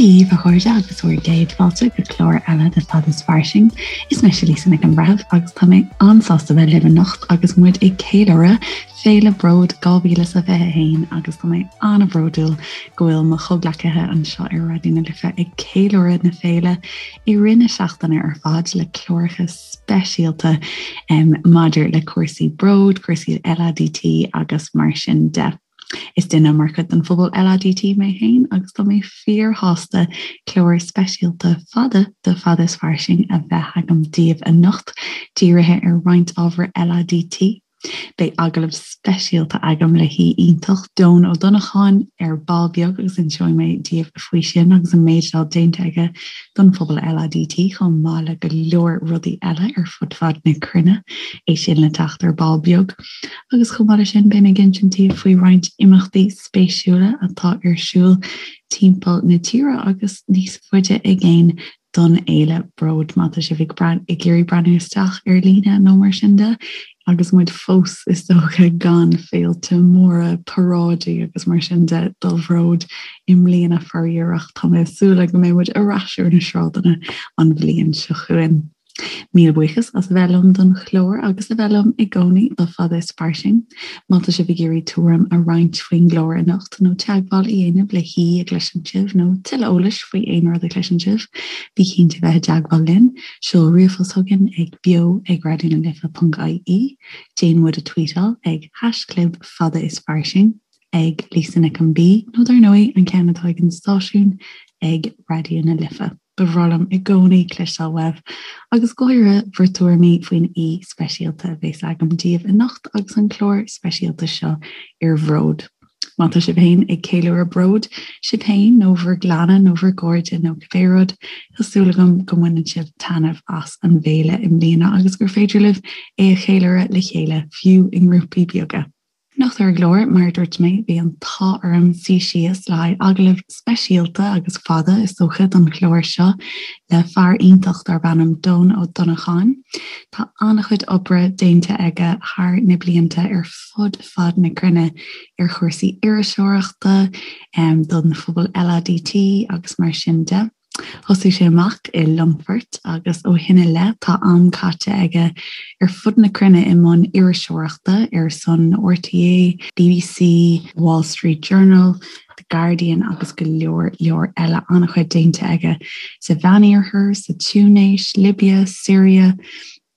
Dia dhaoibh a chairde agus bhur gcéad fáilte go clár eile de Fada is Fairsing. Is mise Lisa Nic an Bhreithimh agus tá mé an-sásta bheith libh anocht agus muid ag ceiliúradh Féile Bród 2021 agus tá mé an-bhródúil go bhfuil mo chomhghleacaithe anseo ar Raidió na Life ag ceiliúradh na féile i rith na seachtaine ar fad le cláracha speisialta maidir le cúrsaí bród, cúrsaí LADT agus mar sin de. Is duine mar chuid den phobal LADT mé féin agus tá mé fíorshásta clár speisialta fada de Fada is Fairsing a bheith agam daoibh anocht, dírithe ar roinnt ábhar LADT. Beidh agallamh speisialta agam le haoi iontach, Dohn Ó Donnacháin, ar ball beag agus inseoidh mé daoibh faoi sin agus an méid atá déanta aige don phobal LADT chomh maith le go leor rudaí eile ar fud fad na cruinne, é sin le teacht ar ball beag. Agus chomh maith leis sin, beidh mé ag insint daoibh faoi roinnt imeachtaí spéisiúla atá ar siúl timpeall na tíre agus níos faide i gcéin don fhéile Bród. Má tá sibh ag ag iarraidh breathnú isteach ar líne nó mar sin de, agus muid fós is dócha gan féilte móra, paráidí agus mar sin de do Bhród i mbliana faraor ach tá mé ag súil go mbeidh muid ar ais ar na sráideanna an bhliain seo chugainn. Míle buíochas as a bheith liom don chlár agus a bheith liom i gcónaí do Fada is Fairsing. Má tá sibh ag iarraidh tuairim a roinnt faoin gclár anocht nó teagmháil a dhéanamh le haoi a gcloiseann sibh nó tuilleadh eolais faoi aon rud a chloiseann sibh, bí cinnte bheith i dteagmháil linn. Seol ríomhphost chugainn ag beo ag raidionalife.ie, déan muid a tweetáil ag haischlib fada is fairsing, ag Lisa Nic an B nó dar ndóigh an ceann atá ag an stáisiún ag Raidió na Life. Ba bhreá liom i gcónaí cloisteáil uaibh, agus go háirithe bhur dtuairimí faoin aoi speisialta a bheas agam daoibh anocht agus an clár speisialta seo ar Bhród. Má tá sibh féin ag ceiliúradh Bród, sibh féin nó bhur gclanna nó bhur gcairde nó cibé rud, tá súil agam go mbaineann sibh taitneamh as an bhféile i mbliana agus gur féidir libh é a cheiliúradh le chéile, fiú i ngrúpaí beaga. Anocht ar an gclár, mar a dúirt mé, bhí an t-ádh orm suí síos le haghaidh agallamh speisialta agus fada, is dócha, don chlár seo le fear iontach darb ainm Dohn Ó Donnacháin. Tá an-chuid oibre déanta aige thar na blianta ar fud fad na cruinne ar chúrsaí iriseoireachta, don phobal LADT agus mar sin de. Thosaigh sé amach i Longfort agus ó shin i leith tá am caite aige ar fud na cruinne i mbun iriseoireachta ar son RTÉ, BBC, Wall Street Journal, The Guardian agus go leor leor eile. An-chuid déanta aige sa Mheánoirthear, sa Túinéis, Libia, Siria,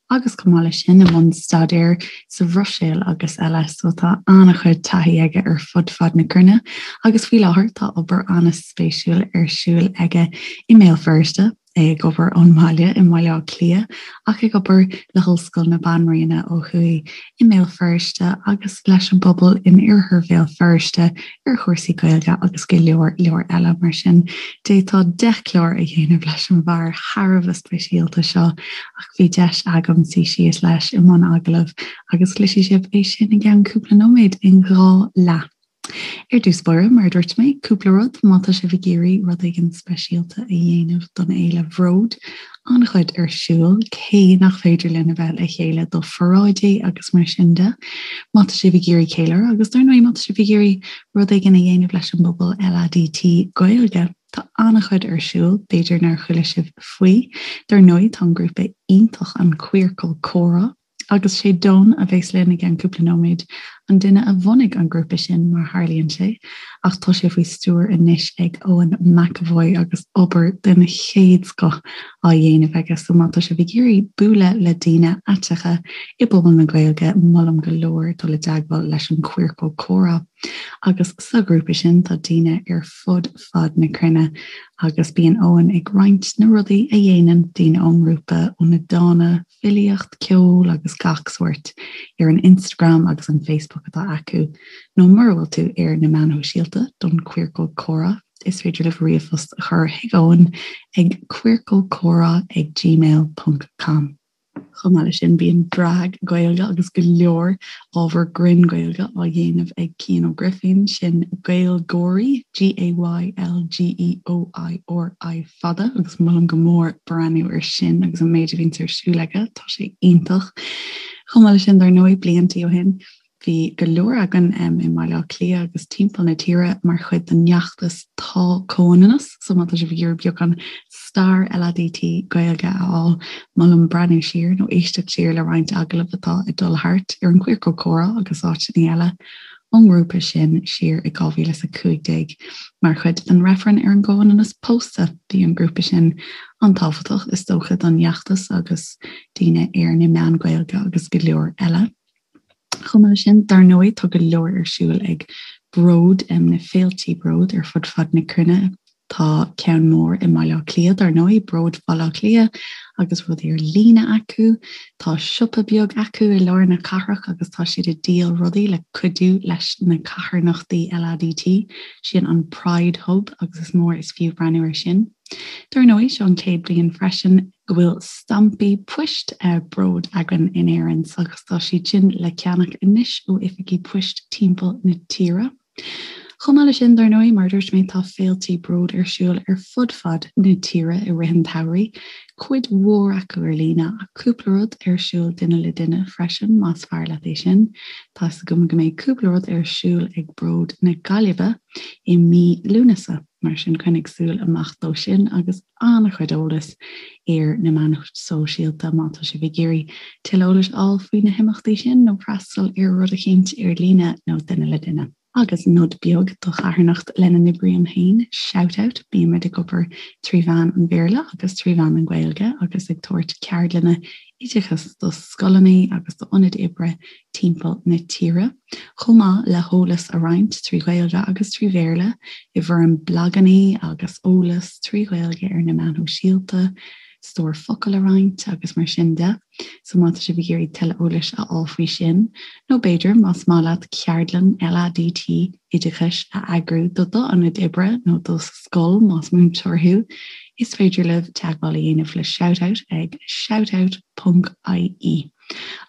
agus chomh maith leis sin i mbun staidéir sa Bhruiséil agus eile, so tá an-chuid taithí aige ar fud fad na cruinne agus faoi láthair tá obair an-spéisiúil ar siúl aige i mBéal Feirste, é ag obair ón mbaile i mBaile Átha Cliath ach ag obair le hOllscoil na Banríona ó thuaidh i mBéal Feirste agus leis an bpobal in oirthear Bhéal Feirste ar chúrsaí Gaeilge agus go leor leor eile mar sin. D'fhéadfá 10 chlár a dhéanamh leis an bhfear thar a bheith speisialta seo ach bhí deis agam suí síos leis i mbun agallaimh agus cloisfidh sibh é sin i gceann cúpla nóiméad in 2 leath. Ar dtús báire, mar a dúirt mé, cúpla rud, má tá sibh ag iarraidh rud éigin speisialta a dhéanamh don fhéile Bhród, an-chuid ar siúl, cé nach féidir linn a bheith le chéile do pharáidí agus mar sin de. Má tá sibh ag iarraidh ceiliúradh agus dar ndóigh má tá sibh ag iarraidh rud éigin a dhéanamh leis an bpobal LADT Gaeilge, tá an-chuid ar siúl, b'fhéidir nár chuala sibh faoi. Dar ndóigh tá an grúpa iontach an Queercal Comhrá, Agus sé Dohn a bheas linn i gceann cúpla nóiméad, an duine a bhunaigh an grúpa sin mar tharlaíonn sé, ach tá sé faoi stiúir anois ag Eoin McEvoy agus obair den chéad scoth á dhéanamh aige. So má tá sibh ag iarraidh bualadh le daoine aiteacha i bpobal na Gaeilge, molaim go leor dul i dteagmháil leis an Queercal Comhrá. Agus sa ghrúpa sin tá daoine ar fud fad na cruinne agus bíonn Eoin ag roinnt na rudaí a dhéanann daoine ón ngrúpa, ó na dána, filíocht, ceol agus gach sórt ar an Instagram agus an Facebook atá acu, nó mura bhfuil tú ar na meáin shóisialta don Queercal Comhrá, is féidir libh ríomhphost a chur chuig Eoin ag queercalcomhrá ag gmail ponc com. Chomh maith leis sin, bíonn drag Gaeilge agus go leor ábhar grinn Gaeilge á dhéanamh ag Cian Ó Grifín, sin Gaylgeoirí, G-A-Y-L-G-E-O-I-R-I fada, agus molaim go mór breathnú ar sin agus an méid a bhíonns ar siúl aige, tá sé iontach. Chomh maith leis sin, dar ndóigh, bliantaí ó shin, Bhí go leor againn i mBaile Átha Cliath agus timpeall na tíre mar chuid den fheachtas Tá Comhionannas, so má tá sibh ag iarraidh beagán stair LADT Gaeilge a fháil, molaim breathnú siar nó éisteacht siar le roinnt agallamh atá ag dul thart ar an Queercal Comhrá agus áiteanna eile ón ngrúpa sin siar i 2015 mar chuid den reifreann ar an gcomhionannas pósta. Bhí an grúpa sin an-tábhachtach is dócha don fheachtas agus daoine ar na meáin Ghaeilge agus go leor eile. Chomh maith leis sin, dar ndóigh, tá go leor ar siúl ag Bród, na féiltí Bród ar fud fad na cruinne. Tá ceann mór i mBaile Átha Cliath, dar ndóigh, Bród Bhaile Átha Cliath, agus rudaí ar líne acu. Tá siopa beag acu i lár na cathrach agus tá siad ag díol rudaí le cuidiú leis na carthanachtaí LADT. Sin an Pride Hub agus is mór is fiú breathnú air sin. Dar ndóigh, seo an chéad bhliain freisin go bhfuil stampaí poist Bród againn in Éirinn agus tá siad sin le ceannach anois ó oifigí poist timpeall na tíre. Chomh maith leis sin, dar ndóigh, mar a dúirt mé, tá féiltí Bród ar siúl ar fud fad na tíre i rith an tsamhraidh, cuid mhór acu ar líne ach cúpla rud ar siúl duine le duine freisin, más fearr leat é sin. Tá's agam go mbeidh cúpla rud ar siúl ag Bród na Gaillimhe i mí Lúnasa. Mar sin, coinnigh súil amach dó sin agus an-chuid eolais ar na meáin shóisialta má tá sibh ag iarraidh tuilleadh eolais a fháil faoi na himeachtaí sin nó freastal ar rud eicínt ar líne nó duine le duine. Agus nod beag do charthanacht lena n-oibrím féin, Shoutout, bímid ag obair trí mheán an Bhéarla agus trí mheán an Ghaeilge agus ag tabhairt ceardlanna oideachais do scoileanna agus d'ionaid oibre timpeall na tíre, chomh maith le heolas a roinnt trí Ghaeilge agus trí Bhéarla i bhfoirm blaganna agus eolas trí Ghaeilge ar na meáin shóisialta, stór focal a roinnt agus mar sin de. So má tá sibh ag iarraidh tuilleadh eolais a fháil faoi sin, nó b'fhéidir más maith leat ceardlann LADT oideachais a eagrú do d'ionad oibre nó do scoil más múinteoir thú, is féidir libh teagmháil a dhéanamh le Shoutout ag shoutout ponc ie.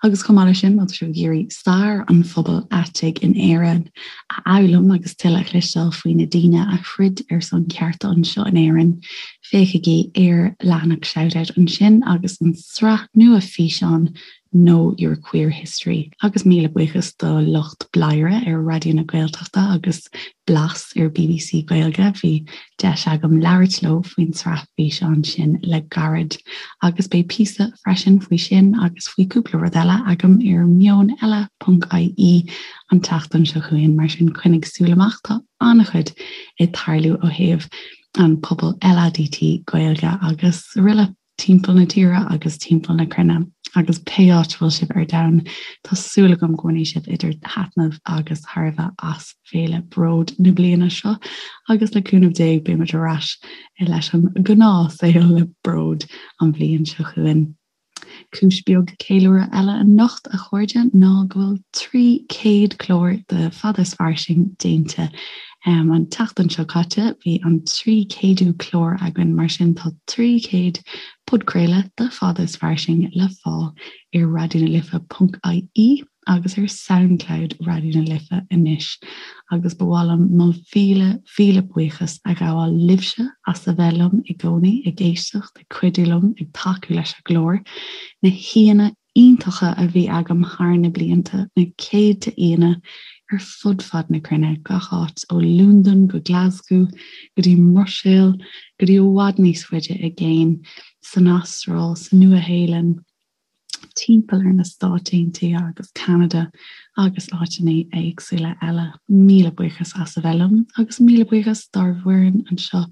Agus chomh maith leis sin, má tá sibh ag iarraidh stair an phobail aitigh in Éirinn a fhoghlaim agus tuilleadh a chloisteáil faoi na daoine a throid ar son cearta anseo in Éirinn, féachaigí ar leathanach Shoutout ansin agus an tsraith nua físeán Know Your Queer History. Agus míle buíochas do lucht Bladhaire ar Raidió na Gaeltachta agus Blas ar bbc Gaeilge, bhí deis agam labhairt leo faoin tsraith físeán sin le gairid. Agus beidh píosa freisin faoi sin agus faoi cúpla rud eile agam ar meoneile ponc ie an tseachtain seo chugainn, mar sin coinnigh súil amach, tá an-chuid ag tarlú ó thaobh an pobal LADT Gaeilge agus araile. timpeall na tíre agus timpeall na cruinne agus pé áit a bhfuil sibh ar domhan, tá súil agam go mbainfidh sibh idir thaitneamh agus thairbhe as Féile Bród na bliana seo agus le cúnamh Dé beidh muid ar ais leis an ngnáthshaol le Bród an bhliain seo chugainn. Cúis beag ceiliúradh eile anocht, a chairde, ná go bhfuil 300 clár de Fada is Fairsing déanta. An tseachtain seo caite bhí an 300ú clár againn, mar sin tá 300 podchraoladh de Fada is Fairsing le fáil ar raidionalife ponc ie agus ar Soundcloud Raidió na Life anois. Agus ba mhaith liom mo mhíle, mhíle buíochas a ghabháil libhse as a bheith liom i gcónaí, ag éisteacht, ag cuidiú liom, ag tacú leis an gclár. Na haíonna iontacha a bhí agam thar na blianta, na céadta aíonna ar fud fad na cruinne, gach áit ó Londain go Glasgow, go dtí an mBruiséil, go dtí i bhfad níos faide i gcéin, san Astráil, sa Nua-Shéalainn, timpeall ar na Stáit Aontaithe agus Ceanada agus áiteanna éagsúla eile. Míle buíochas as a bheith liom agus míle buíochas dár bhfoireann anseo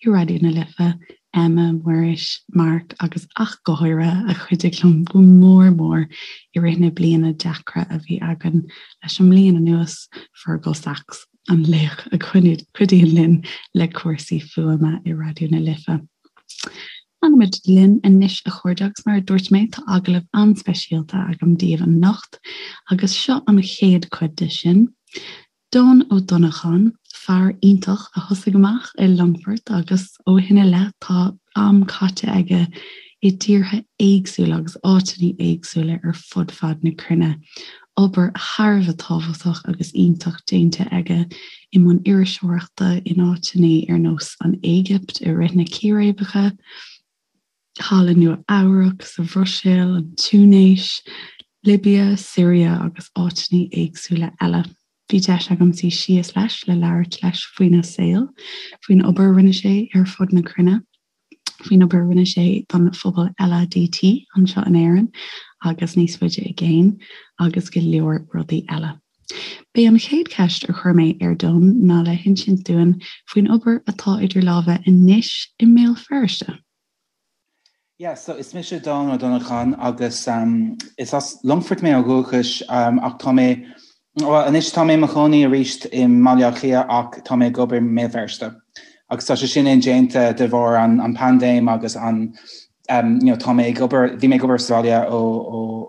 i Raidió na Life, Emma, Muiris, Mark agus ach go háirithe a chuidigh liom go mór mór i rith na bliana deacra a bhí againn leis an mbliain anuas, Fergal Sachs, an laoch a chuidíonn linn le cúrsaí fuaime i Raidió na Life. Fanfaimid linn anois a chairde agus mar a dúirt mé tá agallamh an-speisialta agam daoibh anocht agus seo an chéad chuid de sin. Don Ó Donnacháin, fear iontach a thosaigh amach i Longfort agus ó shin i leith tá am caite aige i dtíortha éagsúla agus áiteanna éagsúla ar fud fad na cruinne. Obair thar a bheith tábhachtach agus iontach déanta aige i mbun iriseoireachta in áiteanna ar nós an Éigipt i rith na círéibeacha, thall i Nua Eabhrac, sa Bhruiséil, an Túinéis. Libia, Siria agus áiteanna éagsúla eile. Bhí deis agam suí síos leis le labhairt leis faoina saol, faoin obair a rinne sé ar fud na cruinne, faoin obair a rinne sé don phobal LADT anseo in Éirinn agus níos faide i gcéin, agus go leor rudaí eile. B'é an chéad cheist a chuir mé ar Don ná le hinsint dúinn faoin obair atá idir lámha anois i mBéal Feirste. Yeah, so is mise Don Ó Donnacháin agus um, is as Longfort mé ó dhúchas um, ach tá mé well, anois tá mé i mo chónaí arís i mBaile Átha Cliath ach tá mé ag obair i mBéal Feirste. Agus tá sé sin indéanta de bharr an, an paindéim agus an um, you know, tá mé ag obair, bhí mé ag obair sa bhaile ó,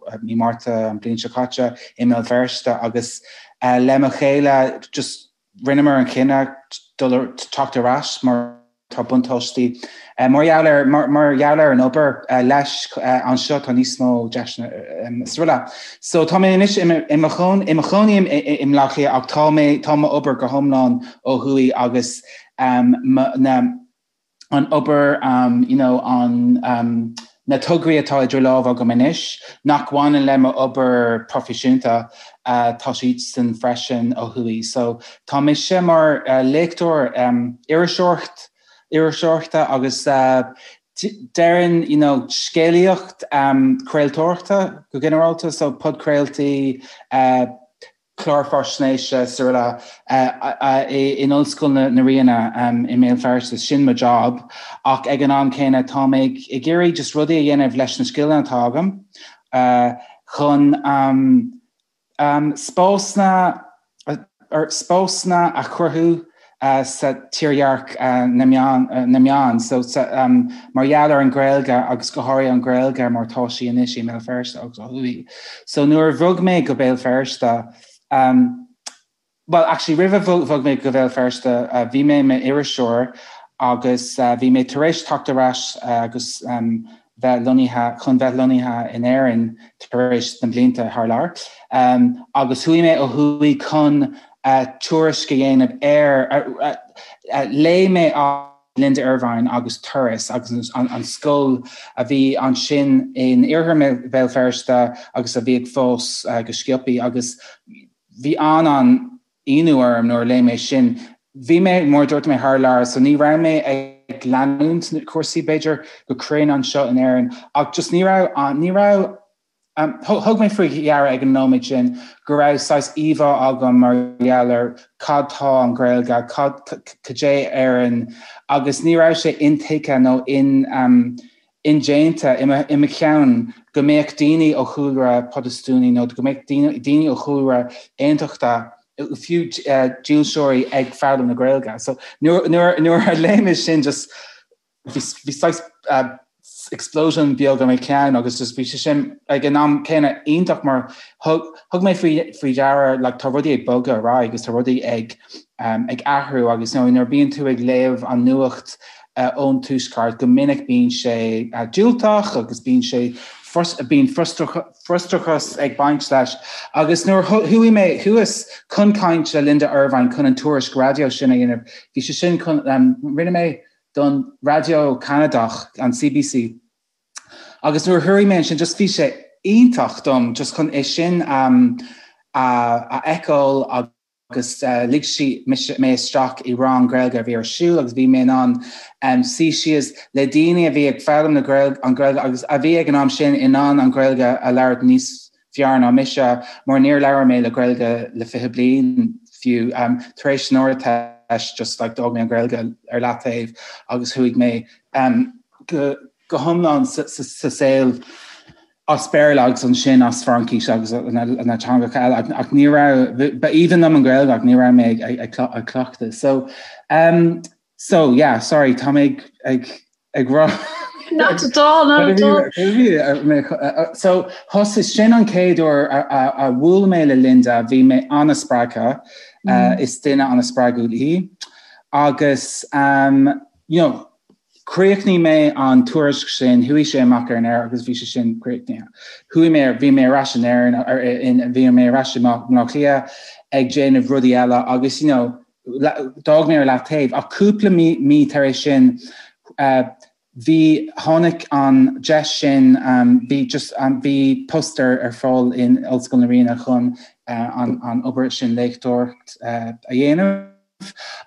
ó mí Márta an bliain seo caite i mBéal Feirste agus uh, le mo chéile just rinneamar an chinneadh dul teacht ar ais mar tá buntáistí mar gheall ar mar gheall ar an obair leis anseo tá níos mó deiseanna is araile. So tá mé anois i mo chónaí i mBaile Átha Cliath ach tá mé tá m'obair go hiomlán ó thuaidh agus na an obair you know an na tograí atá idir lámha agam anois nach bhaineann le m'obair proifisiúnta tá siadsan freisin ó thuaidh. So tá mise mar léachtóir iriseoireacht iriseoireachta agus déarfainn you know scéalaíocht craoltóireachta go ginearálta so podchraoltaí cláir faisnéise is araile in Ollscoil na Ríona i mBéal Feirste, sin mo job ach ag an am céanna tá mé ag iarraidh just rudaí a dhéanamh leis na scileanna atá agam chun spásanna spásanna a chruthú sa tírdhreach na meán so mar gheall ar an Ghaeilge agus go háirithe an Ghaeilge mar tá sí anois i mBéal Feirste agus ó thuaidh. So nuair a bhog mé go Béal Feirste well actually roimh a bhog mé go Béal Feirste bhí mé i m'iriseoir agus bhí mé tar éis teacht ar ais agus bheith lonnaithe chun bheith lonnaithe in Éirinn tar éis na blianta thar lear agus chuaigh mé ó thuaidh chun tuairisc a dhéanamh ar léigh mé Linda Ervine agus Turas agus an scoil a bhí ansin in iarthar Bhéal Feirste agus a bhí ag fás go sciobtha agus bhí an an-ionadh orm nuair a léigh mé sin. Bhí mé, mar a dúirt mé, thar lear so ní raibh mé ag leanúint na cúrsaí b'fhéidir go cruinn anseo in Éirinn ach just ní raibh, ní raibh, thug mé faoi deara ag an nóiméad sin go raibh saghas íomhá agam mar gheall ar cad tá an Ghaeilge, cad, cad é Éirinn agus ní raibh sé intuigthe nó in, indéanta i mo cheann go mbeadh daoine ó chúlra Protastúnaí nó go mbeadh daoine ó chúlra aontachtach, fiú dílseoirí ag foghlaim na Gaeilge. So nuair a léigh mé sin just bhí saghas explosion beag i mo cheann agus just bhí sé sin ag an am céanna iontach mar thug mé faoi deara like tá rudaí ag bogadh ar aghaidh agus tá rudaí ag ag athrú agus nuair a bíonn tú ag léamh an nuacht ón Tuaisceart, go minic bíonn sé diúltach agus bíonn sé bíonn frustrachas ag baint leis. Agus nuair a chuaigh mé thuas chun caint le Linda Ervine chun an tuairisc raidió sin a dhéanamh, bhí sé sin chun, rinne mé don raidió Ceanadach, an CBC, agus nuair a chuaigh mé ansin just bhí sé iontach dom just chun é sin a fheiceáil agus. agus lig sí mé isteach i rang Gaeilge a bhí ar siúl agus bhí mé in ann suí síos le daoine a bhí ag foghlaim na Gaeilge, an Ghaeilge agus a bhí ag an am sin in ann an Ghaeilge a labhairt níos fearr ná mise mar níor labhair mé le Gaeilge le 20 bliain fiú. Tar éis an Ardteist just like d'fhág mé an Ghaeilge ar leataobh agus chuaigh mé go go hiomlán sa saol as Béarla agus ansin as Fraincis agus na teangacha eile ach ní raibh, ba aoibhinn liom an Ghaeilge ach ní raibh mé ag cleachtadh. So um, so yeah, sorry, tá mé ag ag rá Not at all, not at all. So thosaigh sin an chéad uair a bhuail mé le Linda, bhí mé an-spreagtha, uh, is duine an-spreagúil í agus um, you know, Chríochnaigh mé an tuairisc sin, chuaigh sé amach ar an aer agus bhí sé sin críochnaithe. Chuaigh mé, bhí mé ar ais in Éirinn, bhí mé ar ais i mBaile Átha Cliath ag déanamh rudaí eile agus you know, d'fhág mé ar leataobh. Ach cúpla mí tar éis sin, Bhí, tháinig an deis sin, bhí just, bhí post ar ar fáil in Ollscoil na Ríona chun an an obair sin léachtóireacht a dhéanamh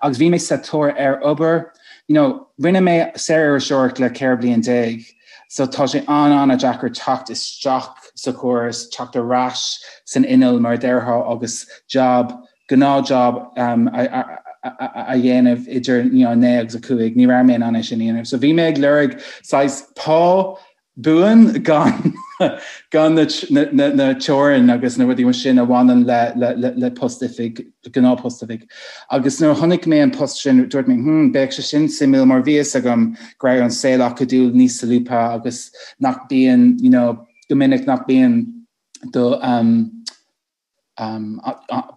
agus bhí mé sa tóir ar obair, you know, rinne mé saoririseoireacht le 14 bliain so tá sé an-an-deacair teacht isteach sa chóras, teacht ar ais san inneall mar a déarfá agus job gnáthjob a dhéanamh idir 9 agus 5, ní raibh mé in ann é sin a dhéanamh. So bhí mé ag lorg saghas pá buan gan gan na na teorainn agus na rudaí mar sin a bhaineann le le le post oifig, gnáthphost oifig. Agus nuair a chonaic mé an post sin dúirt mé hmm beidh sé sin suimiúil mar bhí fhios agam go raibh an saol acadúil níos solúbtha agus nach bíonn you know go minic nach bíonn do um,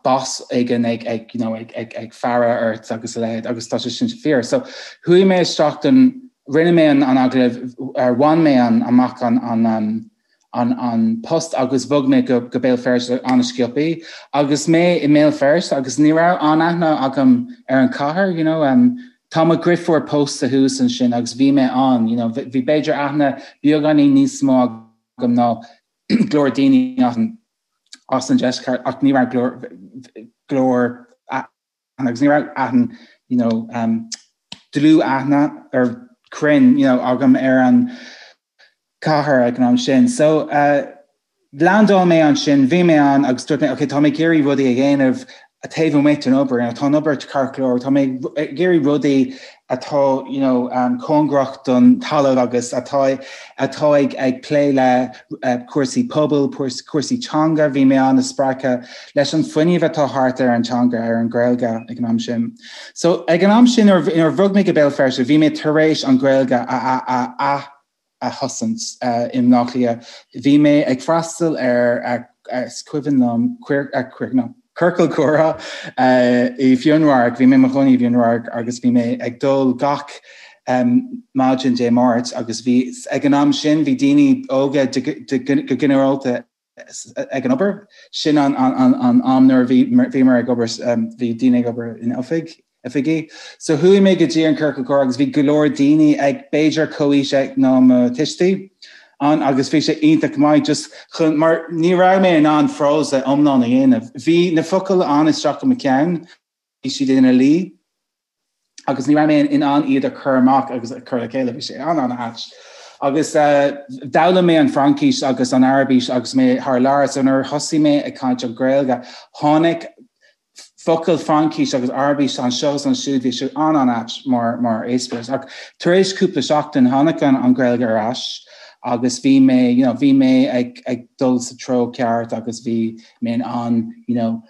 boss éigin ag you know ag faire ort agus a leithéid agus tá sé sin fíor. So chuaigh mé isteach don rinne mé an agallamh ar bhain mé an amach an an an an post agus bhog mé go go Béal Feirste an-sciobtha agus mé i mBéal Feirste agus ní raibh an-aithne agam ar an chathair you know um, Tá mo dheirfiúr pósta thuas ansin agus bhí mé ann you know bhí b'fhéidir aithne beagáinín níos mó agam ná go leor daoine as an deisceart ach ní raibh go leor aithne agus ní raibh aithne you know um, dlúth-aithne ar cruinn you know, agam ar an cathair ag an am sin. So uh, landáil mé ansin, bhí mé ann agus dúirt mé, okay, tá mé ag iarraidh rudaí a dhéanamh taobh amuigh den obair, you know, tá an obair ceart go leor, tá mé ag iarraidh rudaí atá you know, um, cóngarach don talamh agus atá atá ag ag plé le uh, cúrsaí pobail, cúrsaí teanga, bhí mé an-spreagtha leis an fuinneamh atá thart ar an teanga ar an Ghaeilge ag an am sin. So ag an am sin nuair a bhog mé go Béal Feirste, bhí mé tar éis an Ghaeilge a a a a thosant i mBleá Cliath. Bhí mé ag freastal ar is cuimhin liom ciorcal comhrá i bhFionnradharc, bhí mé i mo chónaí i bhFionnradharc agus bhí mé ag dul gach maidin Dé Máirt agus bhí ag an am sin bhí daoine óga go ginearálta ag an obair. Sin an am nuair a bhíomar ag obair, bhí daoine ag obair in oifig, oifigí. So chuaigh mé go dtí an ciorcal comhrá agus bhí go leor daoine ag b'fhéidir comhaois ná mo tuistí ann agus bhí sé iontach maith just chun mar ní raibh mé in ann frása iomlán a dhéanamh. Bhí na focail ann isteach i mo cheann, bhí siad ina luí agus ní raibh mé in ann iad a chur amach agus a chur le chéile, bhí sé an-an-ait. Agus d'fhoghlaim mé an Fraincis agus an Araibis agus mé thar lear, so nuair a thosaigh mé ag caint an Ghaeilge, tháinig focail Fraincis agus Araibis anseo is ansiúd, bhí sé an-an-ait mar mar eispéireas. Ach tar éis cúpla seachtain tháinig an an Ghaeilge ar ais agus bhí mé you know, bhí mé ag ag dul sa treo ceart agus bhí mé in ann you know,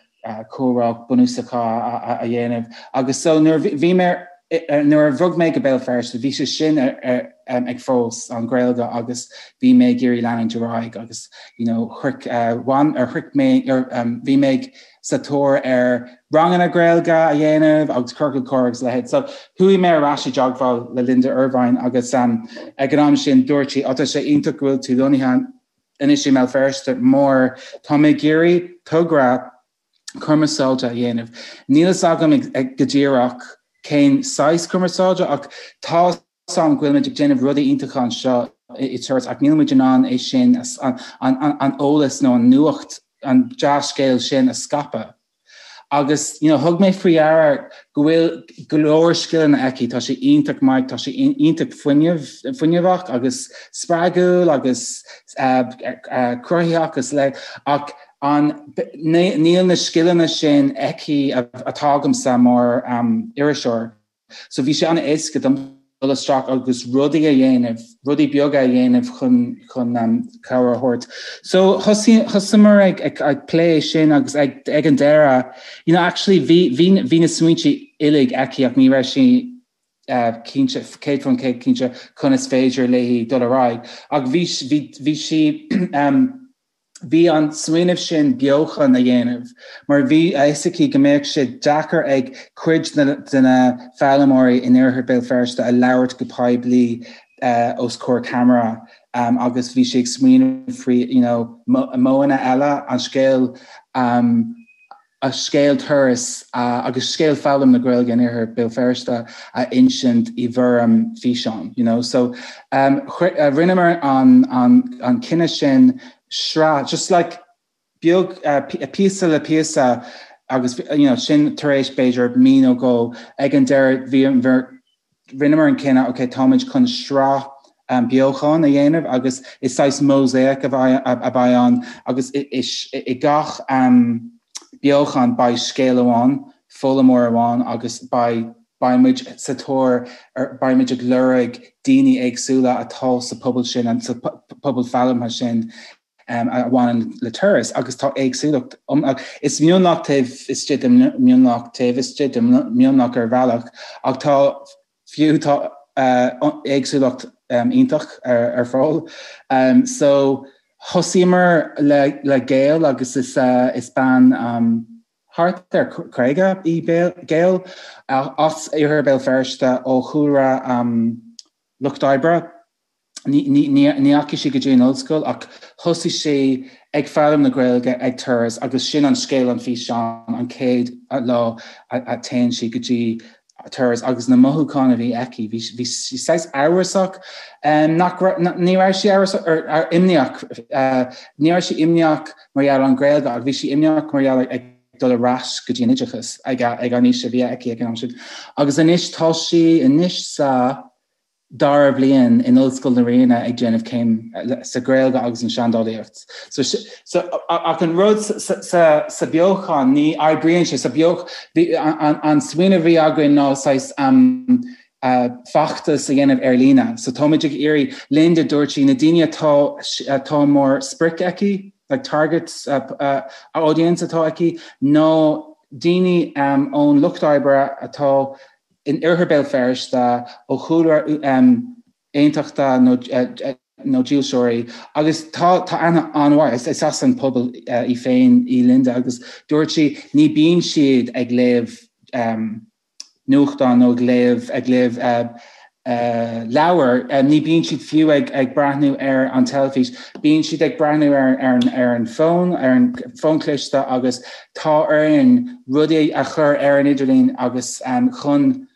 comhrá bunúsacha a dhéanamh agus so nuair bhí mé nuair a bhog mé go Béal Feirste bhí sé sin ag fós an Ghaeilge agus bhí mé ag iarraidh leanúint ar aghaidh agus you know shroich bhain ar shroich mé bhí mé ag sa tóir ar ranganna Gaeilge a dhéanamh agus ciorcal comhrá agus a leithéid. So chuaigh mé ar ais i dteagmháil le Linda Ervine agus ag an am sin dúirt sí, tá sé iontach go bhfuil tú lonnaithe anois i mBéal Feirste mar tá mé ag iarraidh togra cumarsáide a dhéanamh. Níl fhios agam go díreach cén saghas cumarsáide ach tá fhios agam go bhfuil muid ag déanamh rudaí iontacha anseo i Turas ach níl muid in ann é sin an eolas nó an nuacht an dea-scéal sin a scaipeadh. Agus you know, thug mé faoi deara go bhfuil go leor scileanna aici, tá sé iontach maith, tá sé iontach fuinneamh, fuinneamhach agus spreagúil agus uh, uh, cruthaitheach agus le ach an níl na scileanna sin aici atá agamsa mar um, iriseoir. So bhí sé an-éasca dom dul isteach agus rudaí a dhéanamh, rudaí beaga a dhéanamh chun chun um, cabhair a thabhairt. So thosaíomar ag, ag, ag plé sin agus ag, ag an deireadh, you know, actually bhí, bhí, bhí na smaointe uilig aici ach ní raibh sí uh, cinnte, 100% cinnte conas féidir léi dul ar aghaidh. Ach bhí, bhí, bhí sí um, Bhí an smaoineamh sin beochan a dhéanamh mar bhí a fhios aici go mbeadh sé deacair ag cuid de na foghlaimeoirí in oirthear Bhéal Feirste a labhairt go poiblí os comhair ceamara agus bhí sí ag smaoineamh faoi you know modhanna eile an scéal. A scéal turas agus scéal foghlaim na Gaeilge in Iarthar Béal Feirste a insint i bhfoirm físeán, you know. So rinneamar an an cinneadh sin sraith, just like beag píosa le píosa agus you know sin tar éis b'fhéidir mí nó dhó ag an deireadh bhí rinneamar an cinneadh, ok, táimid chun sraith beochan a dhéanamh agus is saghas mosaic a bheidh ann agus i gach beochan beidh scéal amháin, foghlaimeoir amháin agus beidh beidh muid sa tóir ar, beidh muid ag lorg daoine éagsúla atá sa pobal sin, sa pobal foghlamtha sin a bhaineann le turas agus tá éagsúlacht is mionlach taobh istigh de mionlach taobh istigh de mionlach ar bhealach ach tá fiú tá éagsúlacht iontach ar fáil. So thosaíomar le le Gail agus is is bean thart ar 50 í Gail as Iarthar Béal Feirste ó chúlra lucht oibre. Ní dheachaigh sí go dtí an ollscoil ach thosaigh sí ag foghlaim na Gaeilge ag Turas agus sin an scéal an físeán an chéad lá a téann sí go dtí Turas agus na mothúcháin a bhí aici. Bhí sí saghas amhrasach, nach ní raibh sí amhrasach or imníoch, ní raibh sí imníoch mar gheall ar an Ghaeilge ach bhí sí imníoch mar gheall ag dul ar ais go dtí an oideachas ag an aois a bhí aici ag an am sin. Agus anois tá sí anois sa dara bliain in Ollscoil na Ríona ag déanamh céim sa Ghaeilge agus an Seandálaíocht. So, so, ach an rud sa, sa, sa beochan, ní oibríonn sé sa beoch, bhí, an, an smaoineamh a bhí againn ná saghas um, uh, feachtas a dhéanamh ar líne. So táimid ag iarraidh Linda dúirt sí na daoine atá atá mar sprioc aici, like target uh, uh, audience atá aici, ná daoine um, ón lucht oibre atá in oirthear Béal Feirste ó chúlra aontachtach nó dílseoirí agus tá tá aithne an-mhaith, is as an pobal í féin í Linda agus dúirt sí ní bíonn siad ag léamh nuachtán nó ag léamh ag léamh leabhar, ní bíonn siad fiú ag ag breathnú ar an teilifís, bíonn siad ag breathnú ar ar ar an bhfón, ar an bhfón cliste agus tá orainn rudaí a chur ar an idirlíon agus chun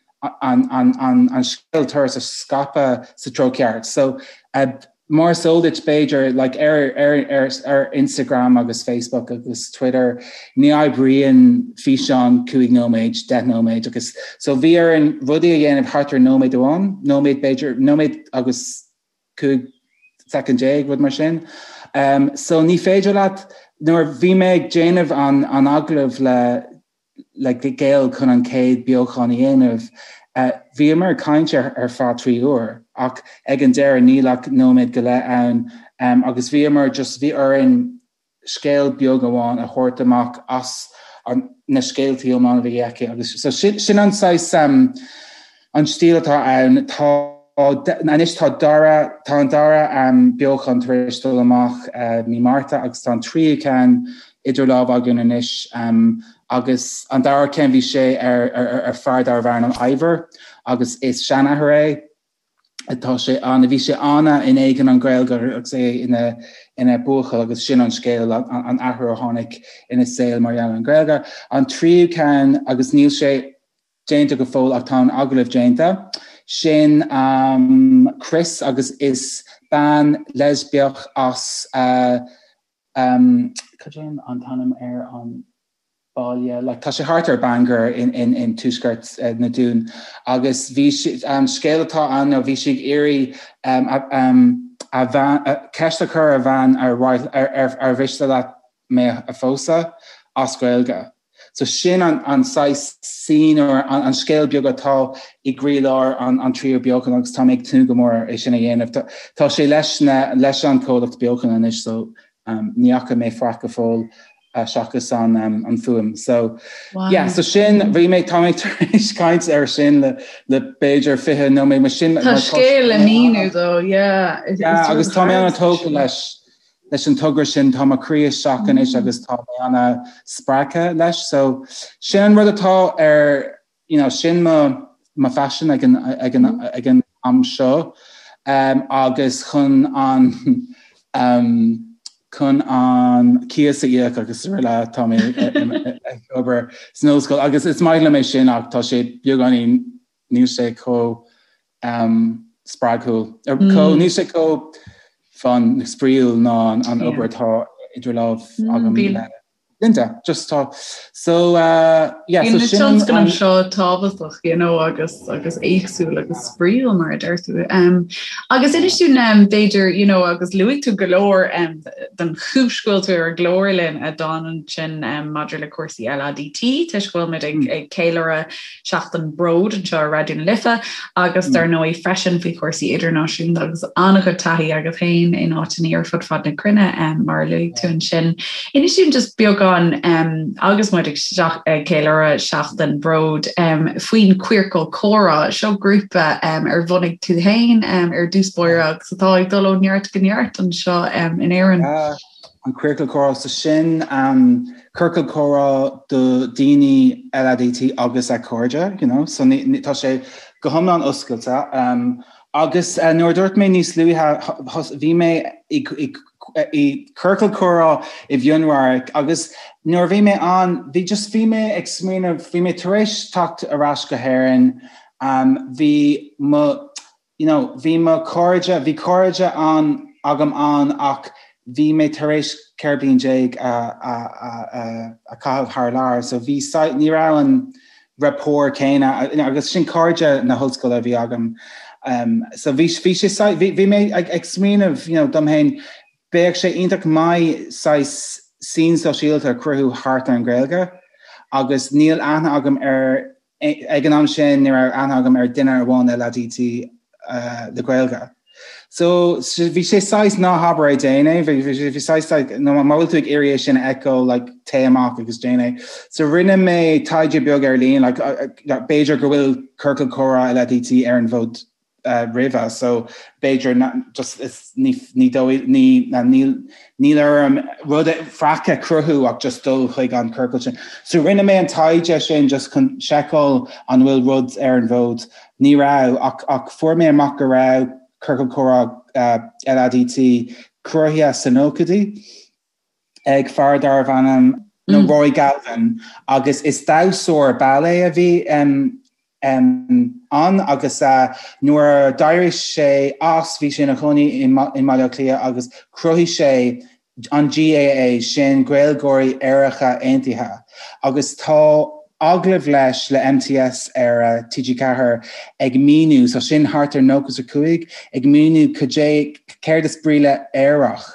an an an an scéal turas a scaipeadh sa treo ceart. So mar is eol duit b'fhéidir like ar ar ar ar Instagram agus Facebook agus Twitter ní oibríonn físeán 5 nóiméad, 10 nóiméad agus so bhí orainn rudaí a dhéanamh thart ar nóiméad amháin, nóiméad b'fhéidir, nóiméad agus 15 soicind, rud mar sin. Um, so ní féidir leat nuair bhí mé ag déanamh an, an agallamh le le Gail chun an chéad beochan a dhéanamh. Bhíomar ag caint ar ar feadh 3 uair ach ag an deireadh níl ach nóiméad go leith ann agus bhíomar just bhí orainn scéal beag amháin a thabhairt amach as an na scéaltaí iomlán a bhí aici agus so sin sin an saghas an stíl atá ann. Tá anois tá dara tá an dara beochan tar éis dul amach mí Márta agus tá an tríú ceann idir lámha againn anois agus an dara ceann bhí sé ar ar fear darbh ainm Ivor agus is seanathair é tá sé an bhí sé ana in éadan an Ghaeilge agus é ina ina buachaill agus sin an scéal an athrú a tháinig ina saol mar gheall ar an Ghaeilge. An tríú ceann agus níl sé déanta go fóill ach tá an agallamh déanta. Sin Chris agus is bean leispiach as cad é an t-ainm ar an baile like tá sé thart ar Bangor in in in tuaisceart na Dún agus bhí sí an scéal atá ann nó bhí sí ag iarraidh a bhean ceist a chur ar a bhean ar ar ar mhiste leat mé a phósadh as Gaeilge. So sin an an saghas scene or an an scéal beag atá i gcroílár an an tríú beochan agus tá mé ag tnúth go mór é sin a dhéanamh. Tá tá sé leis na leis an comhlacht beochan anois so um, ní fhaca mé faic go fóill uh, seachas an um, an fuaim. So wow. yeah, so sin bhí mé tá mé tar éis caint ar sin le le b'fhéidir 20 nóiméad mar sin Tá scéal le míniú dó, yeah. Yeah, agus tá mé an-tógtha leis leis an togra sin tá mo chroí isteach anois agus tá mé ana spreagtha leis. So sin an rud atá ar you know, sin mo mo phaisean ag an ag an ag an am seo um, agus chun an um, chun an cíos a íoc agus araile tá mé ag obair san ollscoil agus is maith liom é sin ach tá sé beagáinín níl sé chomh spreagúil chomh níl sé chomh fun spraíúil ná an obair atá idir lámh agam le Linda, just tá so uh, yeah, so sin tionscnamh seo tábhachtach you know, agus agus éagsúil agus spraíúil mar a deir tú. Um, agus inis dúinn um, b'fhéidir you know, agus luaigh tú go leor um, den chúis go bhfuil tú ar an gclár linn a Don ansin um, maidir le cúrsaí LADT toisc go bhfuil muid ag, mm. ag ceiliúradh Seachtain Bróid anseo ar Raidió na Life agus dar ndóigh freisin faoi chúrsaí idirnáisiúnta agus an-chuid taithí agat féin in áiteanna ar fud fad na cruinne mar a luaigh tú ansin. Inis dúinn just beagán agus muid ag ceiliúradh Seachtain Bróid faoin Queercal Comhrá, seo grúpa ar bhunaigh tú féin ar dtús báire agus atá ag dul ó neart go neart anseo in Éirinn. An Queercal Comhrá, so sin ciorcal comhrá do daoine LADT agus a cairde, you know, so ní, tá sé go hiomlán oscailte. Um, agus uh, nuair a dúirt mé níos luaithe, bhí mé i, i, i ciorcal comhrá i bhFionnradharc agus nuair a bhí mé ann, bhí just bhí mé ag smaoineamh, bhí mé tar éis teacht ar ais go hÉirinn, um, bhí mo you know, bhí mo cairde, bhí cairde ann agam ann ach bhí mé tar éis 14 bliain a, a, a, a, a chaitheamh thar lear, so bhí, ní raibh an rapport céanna, you know, agus sin cairde na hollscoile a bhí agam. Um, so bhí, bhí sé, bhí, bhí mé ag, ag smaoineamh, you know, dom féin, bheadh sé iontach maith saghas scene sóisialta a chruthú thart ar an Ghaeilge agus níl aithne agam ar Ag an am sin ní raibh aithne agam ar duine amháin LADT le Gaeilge. So bhí sé saghas ná habair é déan é, bhí saghas like, no, má bhfuil tú ag iarraidh é sin a fheiceáil like, téigh amach agus déan é. So rinne mé taighde beag ar líne, like, b'fhéidir go bhfuil ciorcal comhrá LADT ar an bhfód roimhe so b'fhéidir just is ní ní dóigh ní níl níl orm rud faic a chruthú ach just dul chuig an ciorcal sin. So rinne mé an taighde sin just chun seiceáil an bhfuil rud ar an bhfód. Ní raibh ach ach fuair mé amach go raibh ciorcal comhrá LADT cruthaithe sna nóchaidí ag fear darbh ainm nó Roy Galvin agus is damhsóir ballet a bhí ann agus nuair a d'éirigh sé as bhí sé ina chónaí i mBaile Átha Cliath agus chruthaigh sé an GAA, sin Gaeilgeoirí Aeracha Aontaithe agus tá agallamh leis le MTS ar TG4 ag míniú, so sin thart ar 95, ag míniú cad é, céard is brí le aerach.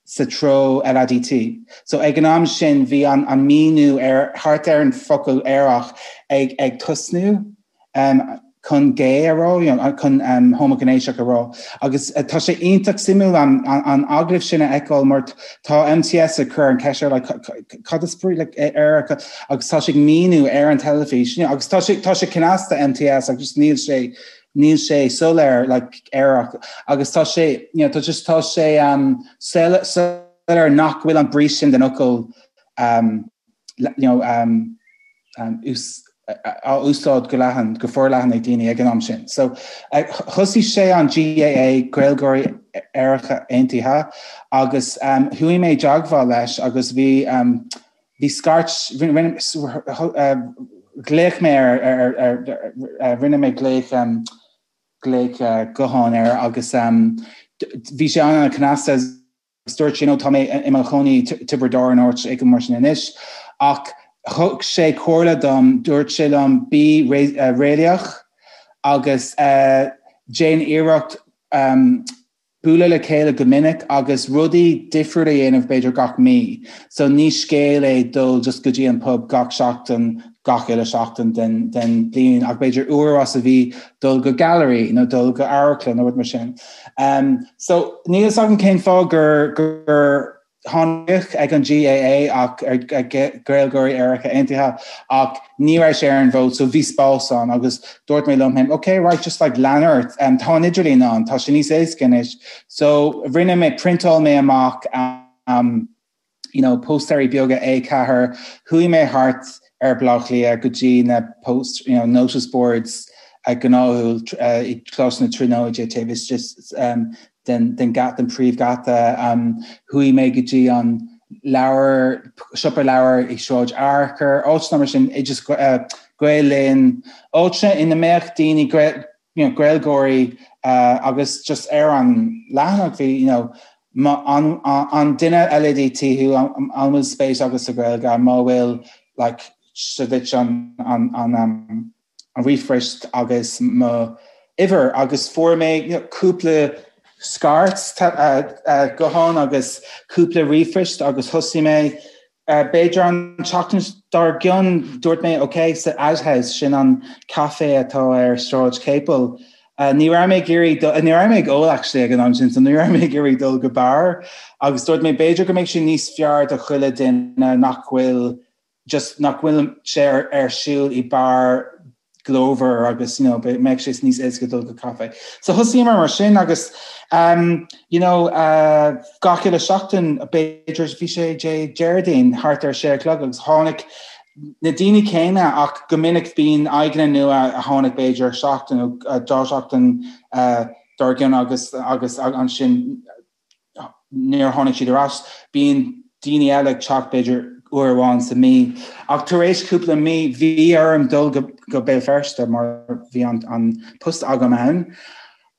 sa treo LADT. So ag an am sin bhí an an míniú ar thart ar an focal aerach ag ag tosnú um, chun gay a rá, you know, chun um, homaighnéasach a rá. Agus uh, tá sé iontach suimiúil an, an, an agallamh sin a fheiceáil mar tá MTS ag cur an ceist air like, cad is brí le aerach agus tá sé ag míniú ar an teilifís you know, agus tá sé tá sé cneasta MTS agus níl sé níl sé soiléir like aerach agus tá sé you know, tá just tá sé um, soiléir nach bhfuil an brí sin den fhocal um, you know, um, um, ús, á úsáid go leathan go forleathan ag daoine ag an am sin. So uh, thosaigh sé an GAA Gaeilgeoirí Aeracha Aontaithe agus um, chuaigh mé i dteagmháil leis agus bhí um, Bhí scairt, ghlaoch mé ar, rinne mé glaoch, glaoch gutháin air agus bhí sé an-cneasta agus dúirt sé, you know, tá mé i mo chónaí i Tiobraid Árann áit éigin mar sin anois ach thug sé comhairle dom, dúirt sé liom bí réalaíoch agus déan iarracht bualadh le chéile go minic agus rudaí difriúla a dhéanamh b'fhéidir gach mí. So ní scéal é dul just go dtí an pub gach seachtain, gach uile seachtain den den bliain ach b'fhéidir uair as a mhí dul go gallery nó dul go amharclann nó rud mar sin. Um, so níl fhios agam cén fáth gur gur tháinig ag an GAA ach ar Gaeilgeoirí Aeracha Aontaithe ach ní raibh sé ar an bhfód so bhí spás ann agus dúirt mé liom féin ok right just like lean ort um, tá an idirlíon ann tá sé níos éasca anois so rinne mé priontáil mé amach um, you know, póstaerí beaga A4 chuaigh mé thart ar Bhaile Átha Cliath go dtí na post you know, notice boards uh, gnáthúil uh, i Coláiste na Tríonóide taobh istigh um, den den den príomhgheata. Chuaigh mé go dtí an leabhar siopa leabhar i Sráid Fhearchair, áiteanna mar sin, just Gael Linn, áiteanna ina mbeadh daoine you know, Gaeilgeoirí agus just ar an leathanach bhí you know, an, an duine LADT thú an bhfuil spéis agat sa Ghaeilge má bhfuil like, seo duit an, an, an, um, an ríomhphost agus mo uimhir agus fuair mé you know, cúpla scairt gutháin agus cúpla ríomhphost agus thosaigh mé b'fhéidir an tseachtain dár gcionn dúirt mé ok sa Outhouse sin an caife atá ar Sráid Capel ní raibh mé ag iarraidh ní raibh mé ag ól actually ag an am sin so ní raibh mé ag iarraidh dul go beár agus dúirt mé b'fhéidir go mbeidh sé níos fearr do chuile duine nach bhfuil just nach bhfuil sé ar, ar siúl i beár glórmhar agus you know, mbeidh sé níos éasca dul go caife. So thosaíomar mar sin agus um, you know, uh, gach uile seachtain b'fhéidir bhí sé Dé Déardaoin thart ar sé a chlog agus tháinig na daoine céanna ach go minic bíonn aghaidheanna nua a tháinig b'fhéidir seachtain nó uh, dá seachtain uh, dár gcionn agus agus ansin níor tháinig siad ar ais. Bíonn daoine eile ag teacht b'fhéidir uair amháin sa mí. Ach tar éis cúpla mí bhí orm dul go, go Béal Feirste mar bhí an, an post agam ann.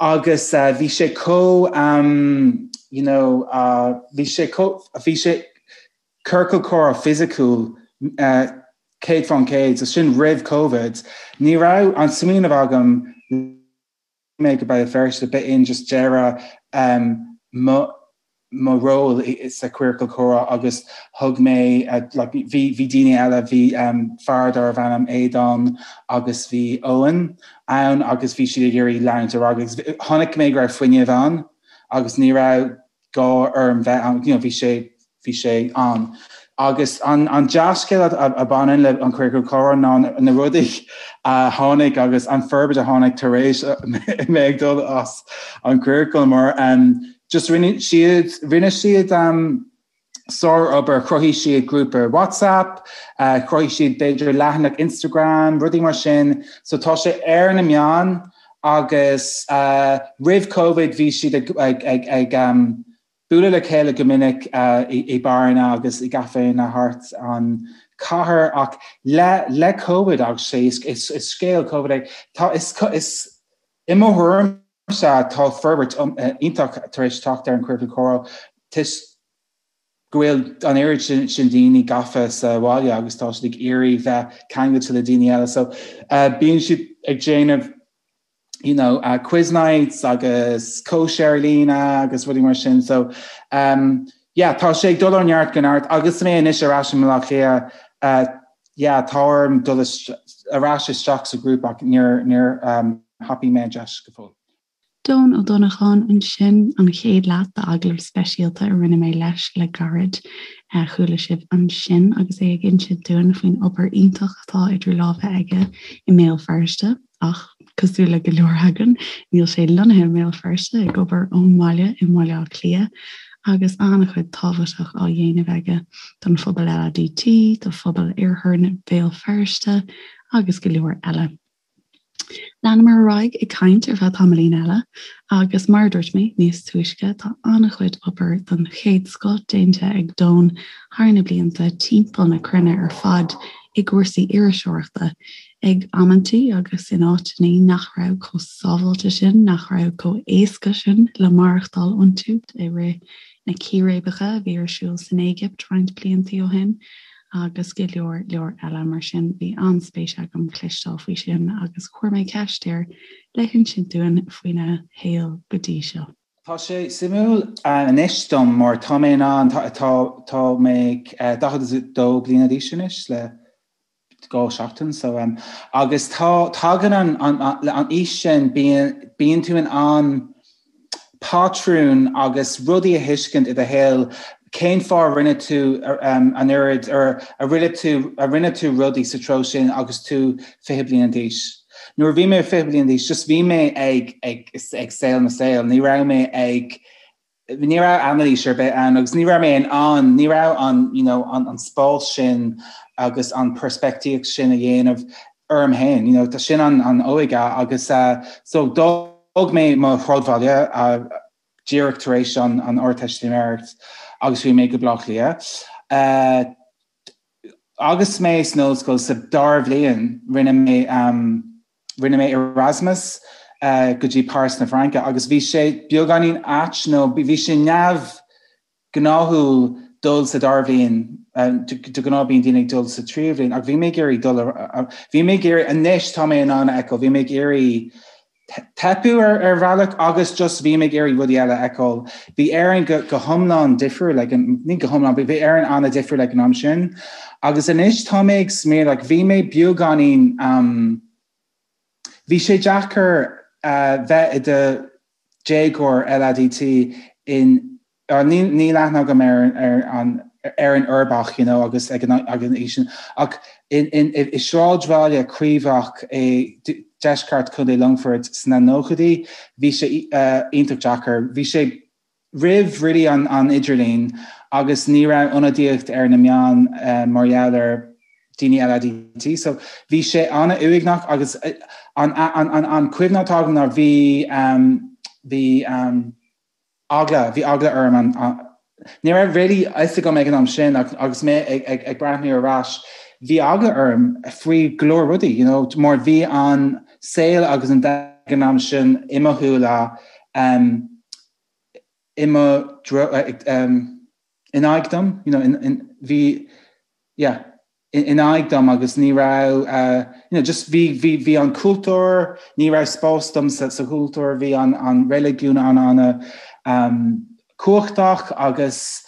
Agus uh, bhí sé chomh um, you know, uh, bhí sé chomh, bhí sé ciorcal comhrá fisiciúil uh, 100% so sin roimh COVID. Ní raibh an smaoineamh agam mé go Béal Feirste, b'in just deireadh mo mo ról sa Queercal Comhrá agus thug mé like bhí bhí daoine eile, bhí fear darbh ainm Aodán agus bhí Eoin ann agus bhí siad ag iarraidh leanúint ar aghaidh agus chonaic mé go raibh fuinneamh ann agus ní raibh gá orm bheith ann, you know, bhí sé, bhí sé ann. Agus an, an dea-scéal a, a bhaineann le an Queercal Comhrá ná na rudaí a tháinig agus an forbairt a tháinig tar éis mé ag dul as an Queercal mar um, just rinne siad, rinne siad um, sár-obair, chruthaigh siad grúpa WhatsApp, uh, chruthaigh siad b'fhéidir leathanach Instagram, rudaí mar sin, so tá sé ar na meáin Agus roimh Covid bhí siad ag ag ag bualadh le chéile go minic i beáranna agus i gcaiféanna thart an chathair ach le le Covid agus sé is is scéal Covid é tá is is i mo thuairimse tá forbairt iontach tar éis teacht ar an Queercal Comhrá toisc go bhfuil an oiread sin daoine gafa sa bhaile agus tá siad ag iarraidh bheith ceangailte le daoine eile so bíonn siad ag déanamh you know uh, quiz nights agus cóisir ar líne agus rudaí mar sin so um, yeah, tá sé ag dul ó neart go neart agus mé anois ar ais i mBaile Átha Cliath uh, yeah, tá orm dul ar ais isteach sa ghrúpa ach níor níor um, thapaigh mé an deis go fóill. Doon Ó Donnacháin ansin, an chéad leath d'agallamh speisialta a rinne mé leis le gairid. Chuala sibh ansin agus é ag insint dúinn faoin obair iontach atá idir lámha aige i mBéal Feirste, ach cosúil le go leor againn, níl sé lonnaithe i mBéal Feirste, ag obair ón mbaile i mBaile Átha Cliath, agus an-chuid tábhachtach á dhéanamh aige don phobal LADT, do phobal Iarthar Bhéal Feirste agus go leor eile. Leanamar ar aghaidh ag caint ar feadh tamaillín eile agus mar a dúirt mé níos túisce tá an-chuid obair den chéad scoth déanta ag Doon thar na blianta timpeall na cruinne ar fad i gcúrsaí iriseoireachta, ag amantaí agus in áiteanna nach raibh chomh sábháilte sin, nach raibh chomh éasca sin le maireachtáil iontu i rith na círéibeacha a bhí ar siúl san Éigipt roinnt blianta ó shin. agus go leor leor eile mar sin. Bhí an-spéis agam cloisteáil faoi sin agus chuir mé ceist air le hinsint dúinn faoina shaol go dtí seo. Tá sé suimiúil anois dom mar tá mé in ann, tá mé 42 bliana d'aois anois le 2 seachtain so agus tá, tagann an aois sin, bíonn tú in ann patrúin agus rudaí a thuiscint i do shaol, cén fáth a rinne tú an oiread or a rinne tú a rinne tú rudaí sa treo sin agus tú 20 bliain d'aois. Nuair a bhí mé 20 bliain d'aois just bhí mé ag ag ag saol mo saol, ní raibh mé ag ní raibh anailís ar bith ann agus ní raibh mé in ann ní raibh an you know an an spás sin agus an peirspictíocht sin a dhéanamh orm féin, you know, tá sin an an óige agus uh, so d'fhág mé mo shráidbhaile uh, díreach tar éis an Ardteistiméireacht agus chuaigh mé go Baile Átha Cliath. Agus mé san ollscoil sa dara bhliain rinne mé rinne mé Erasmus go dtí Páras na Fraince agus bhí sé beagáinín ait nó bhí sé neamh gnáthúil dul sa dara bhliain, de ghnáth bíonn daoine ag dul sa tríú bhliain, ach bhí mé ag iarraidh dul, bhí mé ag iarraidh, anois tá mé in ann a fheiceáil, bhí mé ag iarraidh teipeadh ar bhealach agus just bhí mé ag iarraidh rudaí eile a fheiceáil. Bhí Éirinn go go hiomlán difriúil ag an, ní go hiomlán, bhí Éirinn an-difriúil ag an am sin agus anois tá mé ag smaoineamh, like bhí mé beagáinín, bhí sé deacair bheith i do déagóir LADT in Níl aithne agam ar an Éirinn uirbeach you know agus ag an aois sin ach i sráidbhaile craobhach i deisceart Chontae Longfoirt sna nóchaidí bhí sé iontach deacair. Bhí sé roimh really an idirlíon agus ní raibh ionadaíocht ar na meáin mar gheall ar daoine LADT so bhí sé an-uaigneach agus an cuimhne atá agam ná bhí bhí eagla, bhí eagla orm an, ní raibh really fhios agam ag an am sin ach agus mé ag, ag, ag breathnú ar ais, bhí eagla orm faoi go leor rudaí, you know, mar bhí an saol agus an domhan ag an am sin i mo shúile, um, i mo dro, um, in aghaidh dom, you know, in, in, bhí, yeah, in aghaidh dom agus ní raibh you know just bhí bhí bhí an cultúr, ní raibh spás dom sa sa chultúr, bhí an an reiligiún an an um, cumhachtach agus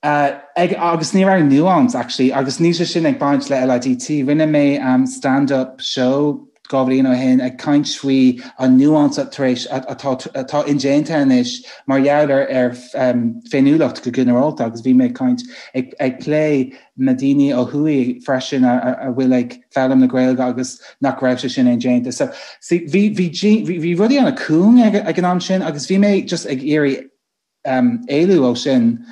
uh, ag, agus ní raibh nuance actually agus níl sé sin ag baint le LADT. Rinne mé um, stand-up show 2 bhliain ó shin ag caint faoi an nuance tar éis atá atá indéanta anois mar gheall ar ar um, féiniúlacht go ginearálta agus bhí mé ag caint ag, ag plé na daoine ó thuaidh freisin a a bhfuil ag foghlaim na Gaeilge agus nach raibh sé sin indéanta. So see, bhí bhí bhí bhí rudaí an-cúng ag ag an am sin agus bhí mé just ag iarraidh um, éalú ó sin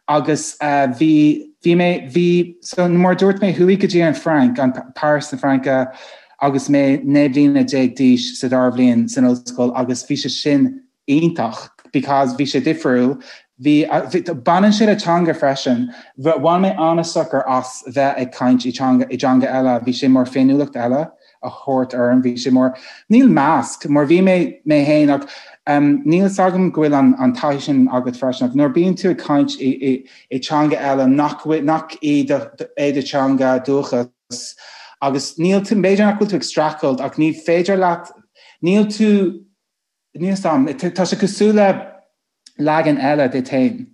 agus uh, bhí bhí mé bhí so mar dúirt mé chuaigh go dtí an Frainc an Paris na Fraince agus mé 19 bliana d'aois sa dara bhliain san ollscoil agus bhí sé sin iontach because bhí sé difriúil, bhí, baineann sé le teanga freisin, bhain mé an-sochar as bheith ag caint i teanga, i dteanga eile, bhí sé mar féiniúlacht eile a thabhairt orm, bhí sé mar, níl masc, mar bhí mé mé féin ach um, níl fhios agam go bhfuil an, an taithí sin agat freisin ach nuair bíonn tú ag caint i, i, i teanga eile nach, nach í do, é do teanga dúchas agus níl tú, b'fhéidir nach bhfuil tú ag streachailt ach ní féidir leat, níl tú Níl fhios a'm. Tá sé cosúil le leagan eile duit féin.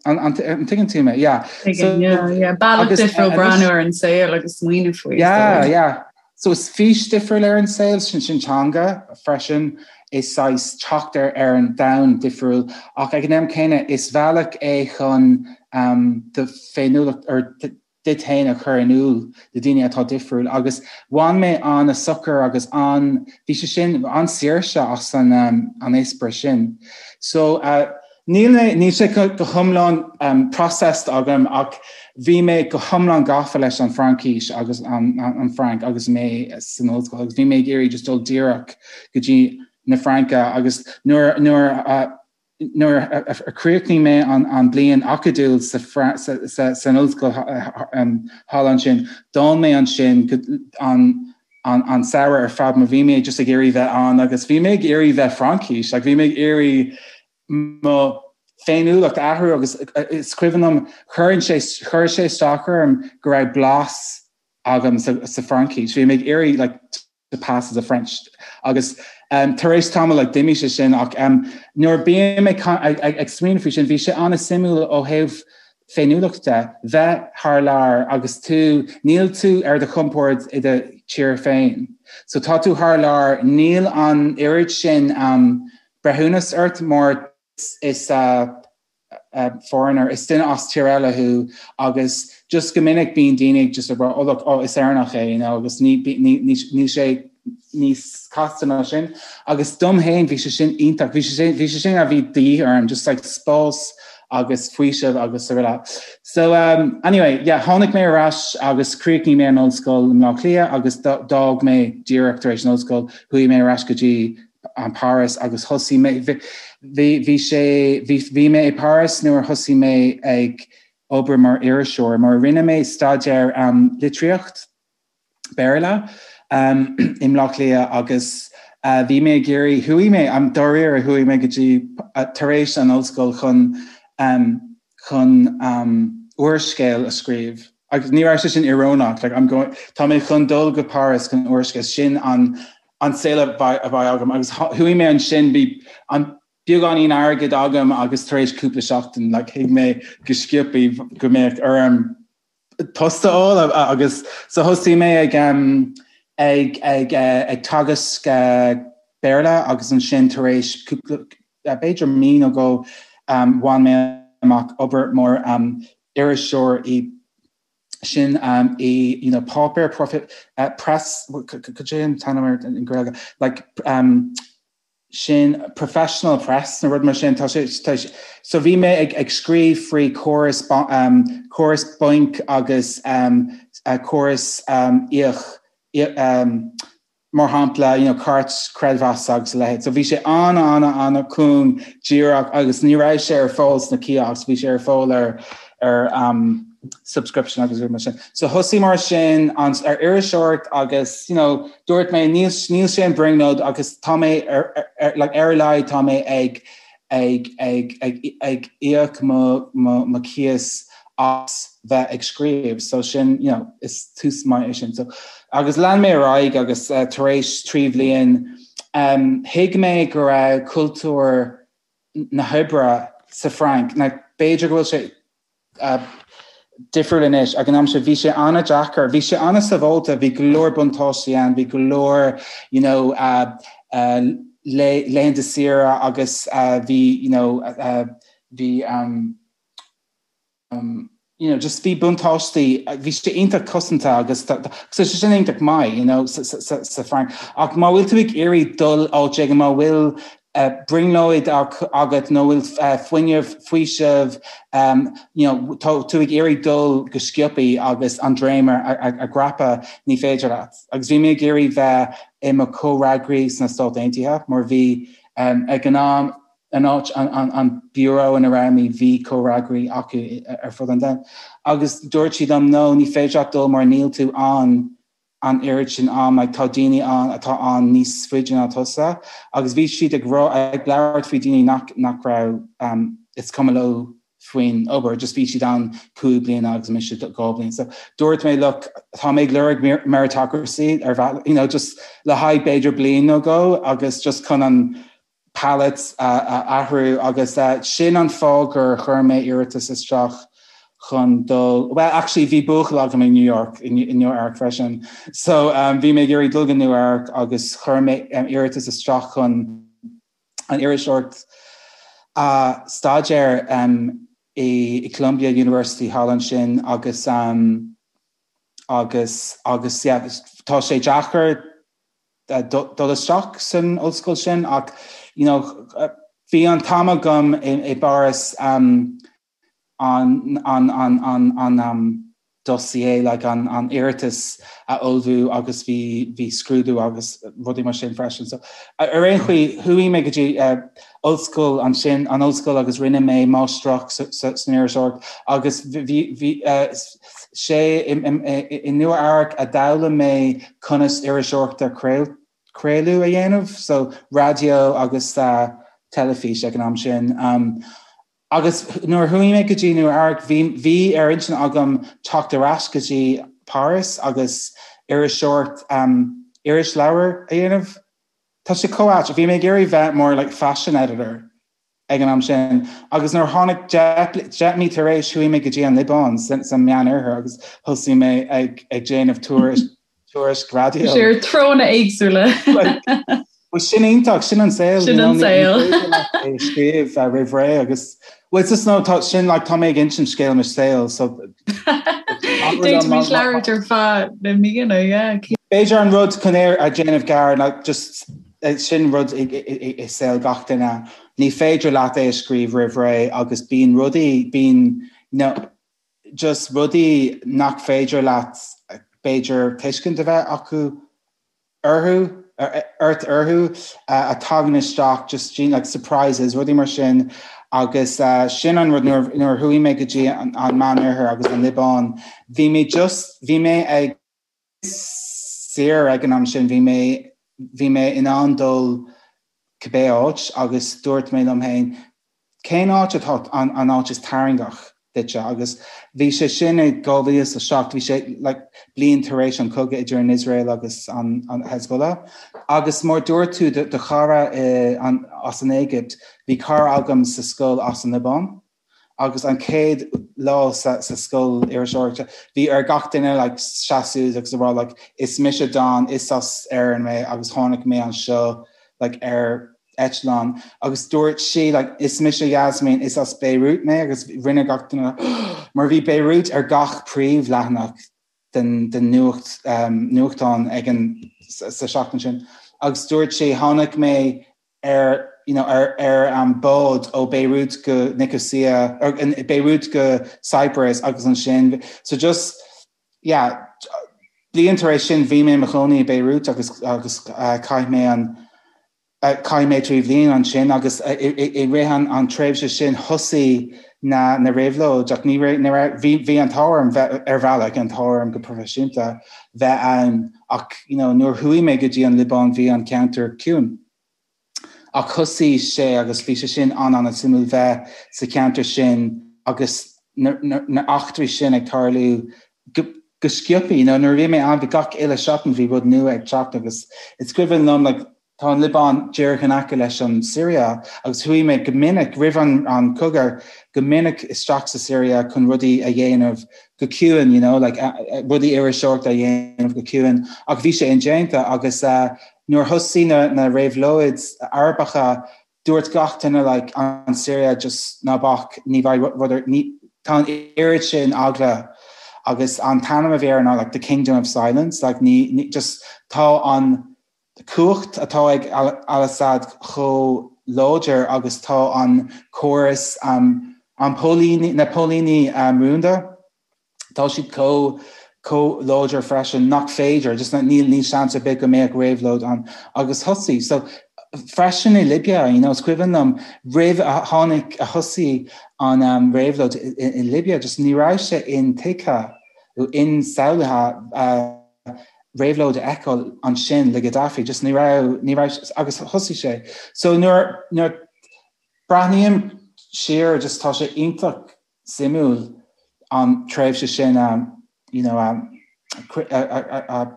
An tuigeann tú mé? Yeah. Tuigim, yeah, yeah. Bealach difriúil breathnú ar an saol agus smaoineamh faoi. Yeah, yeah. So is fís difriúil ar an saol, sin sin teanga freisin, is saghas teacht ar ar an domhan difriúil ach ag an am céanna is bealach é chun um, do féiniúlacht or duit féin a chur in iúl do daoine atá difriúil agus bhain mé an-sochar agus an, bhí sé sin, an-saoirse as an an eispéireas sin. So uh, níl mé, níl sé go, go hiomlán um, processed agam ach bhí mé go hiomlán gafa leis an Fraincis agus an, an, an Frainc agus mé san ollscoil agus bhí mé ag iarraidh just dul díreach go dtí na Fraince agus nuair, nuair uh, Nuair a chríochnaigh mé an bliain acadúil san ollscoil thall ansin, d'fhan mé ansin an samhradh ar fad mar bhí mé just ag iarraidh bheith ann agus bhí mé ag iarraidh bheith Fraincis, like bhí mé ag iarraidh mo féiniúlacht a athrú agus is cuimhin liom chuir sé chuir sé isteach orm go raibh blas agam sa Fraincis. Bhí mé ag iarraidh like to pass as a French agus um, tar éis tamall like, d'imigh sé sin ach um, nuair bím ag, ag, ag, ag smaoineamh faoi sin bhí sé an-suimiúil ó thaobh féiniúlacht de bheith thar lear agus tú níl tú ar do chompord i do tír féin. So tá tú thar lear níl an oiread sin um, breithiúnas ort mar is uh, foreigner, is duine as tír eile thú agus just go minic bíonn daoine ag just ag rá oh look oh is Éireannach é you know agus ní ní ní níl sé níos casta ná sin agus dom féin bhí sé sin iontach bhí sé sin bhí sé sin a bhí de dhíth orm just like spás agus faoiseamh agus araile. So um, anyway, yeah, tháinig mé ar ais agus chríochnaigh mé an ollscoil i mBleá Cliath agus d'fhág mé díreach tar éis an ollscoil, chuaigh mé ar ais go dtí Páras agus thosaigh mé bhí bhí sé bhí bhí mé i Páras nuair a thosaigh mé ag obair mar iriseoir mar rinne mé staidéar um, litríocht Béarla um, i mBleá Cliath agus uh, bhí mé ag iarraidh chuaigh mé am dáiríre chuaigh mé go dtí uh, tar éis an ollscoil chun um, chun um, úrscéal a scríobh. Agus ní raibh sé sin íorónach, like, I'm going, tá mé chun dul go Páras chun úrscéal, sin an, an saol a bheidh, a bheidh agam. Agus chuaigh mé ansin, bhí an beagáinín airgid agam agus tar éis cúpla seachtain, like, thuig mé go sciobtha go mbeadh orm post a fháil agus so thosaigh mé ag, um, ag, ag, uh, ag teagasc uh, Béarla agus ansin tar éis cúpla, b'fhéidir mí nó dhó, um, bhain mé amach obair mar um, iriseoir i sin um, i you know, páipéar profit, uh, press cad é an t-ainm air in Gaeilge like um, sin professional press nó rud mar sin tá sé tá sé so bhí mé ag, ag scríobh faoi córas um, córas bainc agus um, uh, córas um, íoc um, mar shampla, you know, cairt creidmheasa agus a leithéid. So bhí sé an-an-an-cúng díreach agus ní raibh sé ar fáil sna kiosks, bhí sé ar fáil ar ar um, subscription agus rud mar sin. So thosaigh mar sin an, ar iriseoireacht agus you know, dúirt mé níl, níl sé an brionglóid agus tá mé ar, ar, ar, like, ar a laghad tá mé ag ag ag ag ag íoc mo mo mo cíos as bheith ag scríobh so sin you know is tús maith é sin so agus lean mé ar aghaidh agus uh, tar éis 3 bhliain um, thuig mé go raibh cultúr na hoibre sa Frainc na b'fhéidir go bhfuil sé difriúil anois. Ag an am sin bhí sé an-deacair, bhí sé an-sábháilte, bhí go leor buntáistí ann, bhí go leor you know laethanta saoire agus bhí you know bhí um you know just bhí buntáistí, bhí sé iontach cosanta agus so sé sin iontach maith you know sa Frainc. Ach má bhfuil tú ag iarraidh dul áit éigin, má bhfuil brionglóid agat nó bhfuil fuinneamh, faoiseamh, you know, tá tú ag iarraidh dul go sciobtha agus an droim a dhreapadh, ní féidir leat. Agus bhí mé ag iarraidh bheith i mo chomhfhreagraí sna Stáit Aontaithe mar bhí ag an am, an áit, an bureau ina raibh mé, bhí comhfhreagraí acu ar fud an domhain. Agus dúirt siad liom, no, ní féidir leat dul mar níl tú ann an oiread sin am, like tá daoine ann atá ann níos faide ná tusa agus bhí siad ag rá, ag labhairt faoi daoine nach, nach raibh um, is cuma leo faoin obair, just bhí siad ann 5 bliana agus mise 2 bliain. So dúirt mé, look, tá mé ag lorg meritocracy ar bhealach, you know, just le haghaidh b'fhéidir bliain nó dhó agus just chun an palette a athrú agus sin an fáth gur chuir mé iarratas isteach chun dul, well actually bhí buachaill agam i New York, i Nua Eabhrac freisin, so bhí mé ag iarraidh dul go Nua Eabhrac agus chuir mé iarratas isteach chun an iriseoireacht a staidéar i Columbia University thall ansin agus agus agus yeah tá sé deacair dul isteach san ollscoil sin ach you know bhí an t-am agam i bPáras um, an an an an an um, dossier like an an iarratas a ullmhú agus bhí bhí scrúdú agus rudaí mar sin freisin. So ar aon chaoi chuaigh mé go dtí uh, ollscoil ansin an ollscoil agus rinne mé máistreacht san iriseoireacht agus bhí bhí uh, sé i i Nua Eabhrac a d'fhoghlaim mé conas iriseoireacht ar craoladh a dhéanamh, so raidió agus teilifís ag an am sin. Agus nuair a chuaigh mé go dtí Nua Eabhrac bhí bhí ar intinn agam teacht ar ais go dtí Páras agus iriseoireacht irisleabhar a dhéanamh. Tá sé chomh ait, bhí mé ag iarraidh bheith mar like fashion editor. ag an am sin agus nuair a tháinig 10 mí tar éis chuaigh mé go dtí an Liobáin sa Meánoirthear agus thosaigh mé ag ag déanamh tuairisc tuairisc raidió. Sé ar treonna éagsúla. Well sin iontach, sin an saol. Sin an saol. É scríobh roimh ré agus well it's just no tá sin like tá mé ag insint scéal mo saol so D'fhéadfaimis labhairt ar feadh na míonna, yeah. B'fhéidir an rud chun é a dhéanamh gearr ná just Sin rud i saol gach duine. Ní féidir leat é a scríobh roimh ré agus bíonn rudaí, bíonn you know just rudaí nach féidir leat b'fhéidir tuiscint a bheith acu orthu. ort orthu a tagann isteach just like surprises rudaí mar sin agus sin an rud nuair a chuaigh mé go dtí an Meánoirthear agus an Liobáin bhí mé just bhí mé ag saor ag an am sin bhí mé bhí mé in ann dul cibé áit agus dúirt mé liom féin Cén áit atá an áit is tarraingeach duitse? Agus bhí sé sin i 2007, bhí sé like bliain tar éis an cogadh idir an Iosrael agus an Hezbollah. Agus mar dúirt tú do chara as an Éigipt, bhí cara agam sa scoil as an Liobáin. Agus an chéad lá sa scoil iriseoireachta, bhí ar gach duine like seasamh agus a rá like is mise Don, is as Éirinn mé agus tháinig mé anseo like ar eitleán agus dúirt sí like is mise Yasmin, is as Beirut mé agus rinne gach duine mar bhí Beirut ar gach príomhleathanach den den nuacht um, nuachtán ag an sa seachtain sin agus dúirt sí tháinig mé ar you know, ar ar an um, bád ó Beirut go Nicosia or Beirut go Cyprus agus ansin so just yeah bliain tar éis sin bhí mé i mo chónaí i Beirut agus agus uh, chaith mé an Chaith mé 3 bhliain ansin agus i rith an tréimhse sin thosaigh na na réabhlóid ach ní raibh bhí bhí an t-ádh orm bheith ar bhealach an t-ádh orm go proifisiúnta bheith ann ach you know nuair chuaigh mé go dtí an Liobáin bhí an ceantar ciúin. Ach thosaigh sé agus bhí sé sin an-an-suimiúil bheith sa cheantar sin agus na na eachtraí sin ag tarlú go go sciobtha you know nuair a bhí mé ann bhí gach uile seachtain bhí rud nua ag teacht agus is cuimhin liom like tá an Liobáin díreach in aice leis an Siria agus chuaigh mé go minic roimh an an cogadh go minic isteach sa Siria chun rudaí a dhéanamh go ciúin you know like rudaí iriseoireachta a dhéanamh go ciúin ach bhí sé indéanta agus uh, nuair thosaigh na na réabhlóid Arabacha Dúirt gach duine like an Siria just ná bac ní bheidh rud ar ní tá an oiread sin eagla agus an t-ainm a bhí air ná like the kingdom of silence like ní ní just tá an cumhacht atá ag al-Assad chomh láidir agus tá an córas um an póilíní na póilíní um rúnda Tá siad chomh chomh láidir freisin nach féidir, just níl níl seans ar bith go mbeadh réabhlóid ann agus thosaigh. So freisin i Libya, you know, is cuimhin liom roimh a tháinig a thosaigh an um, réabhlóid i, i Libya, just ní raibh sé intuigthe nó insamhlaithe uh, réabhlóid a fheiceáil ansin le Gaddafi, just ní raibh ní raibh agus thosaigh sé. So nuair nuair breathnaím siar just tá sé iontach suimiúil an tréimhse sin a you know a a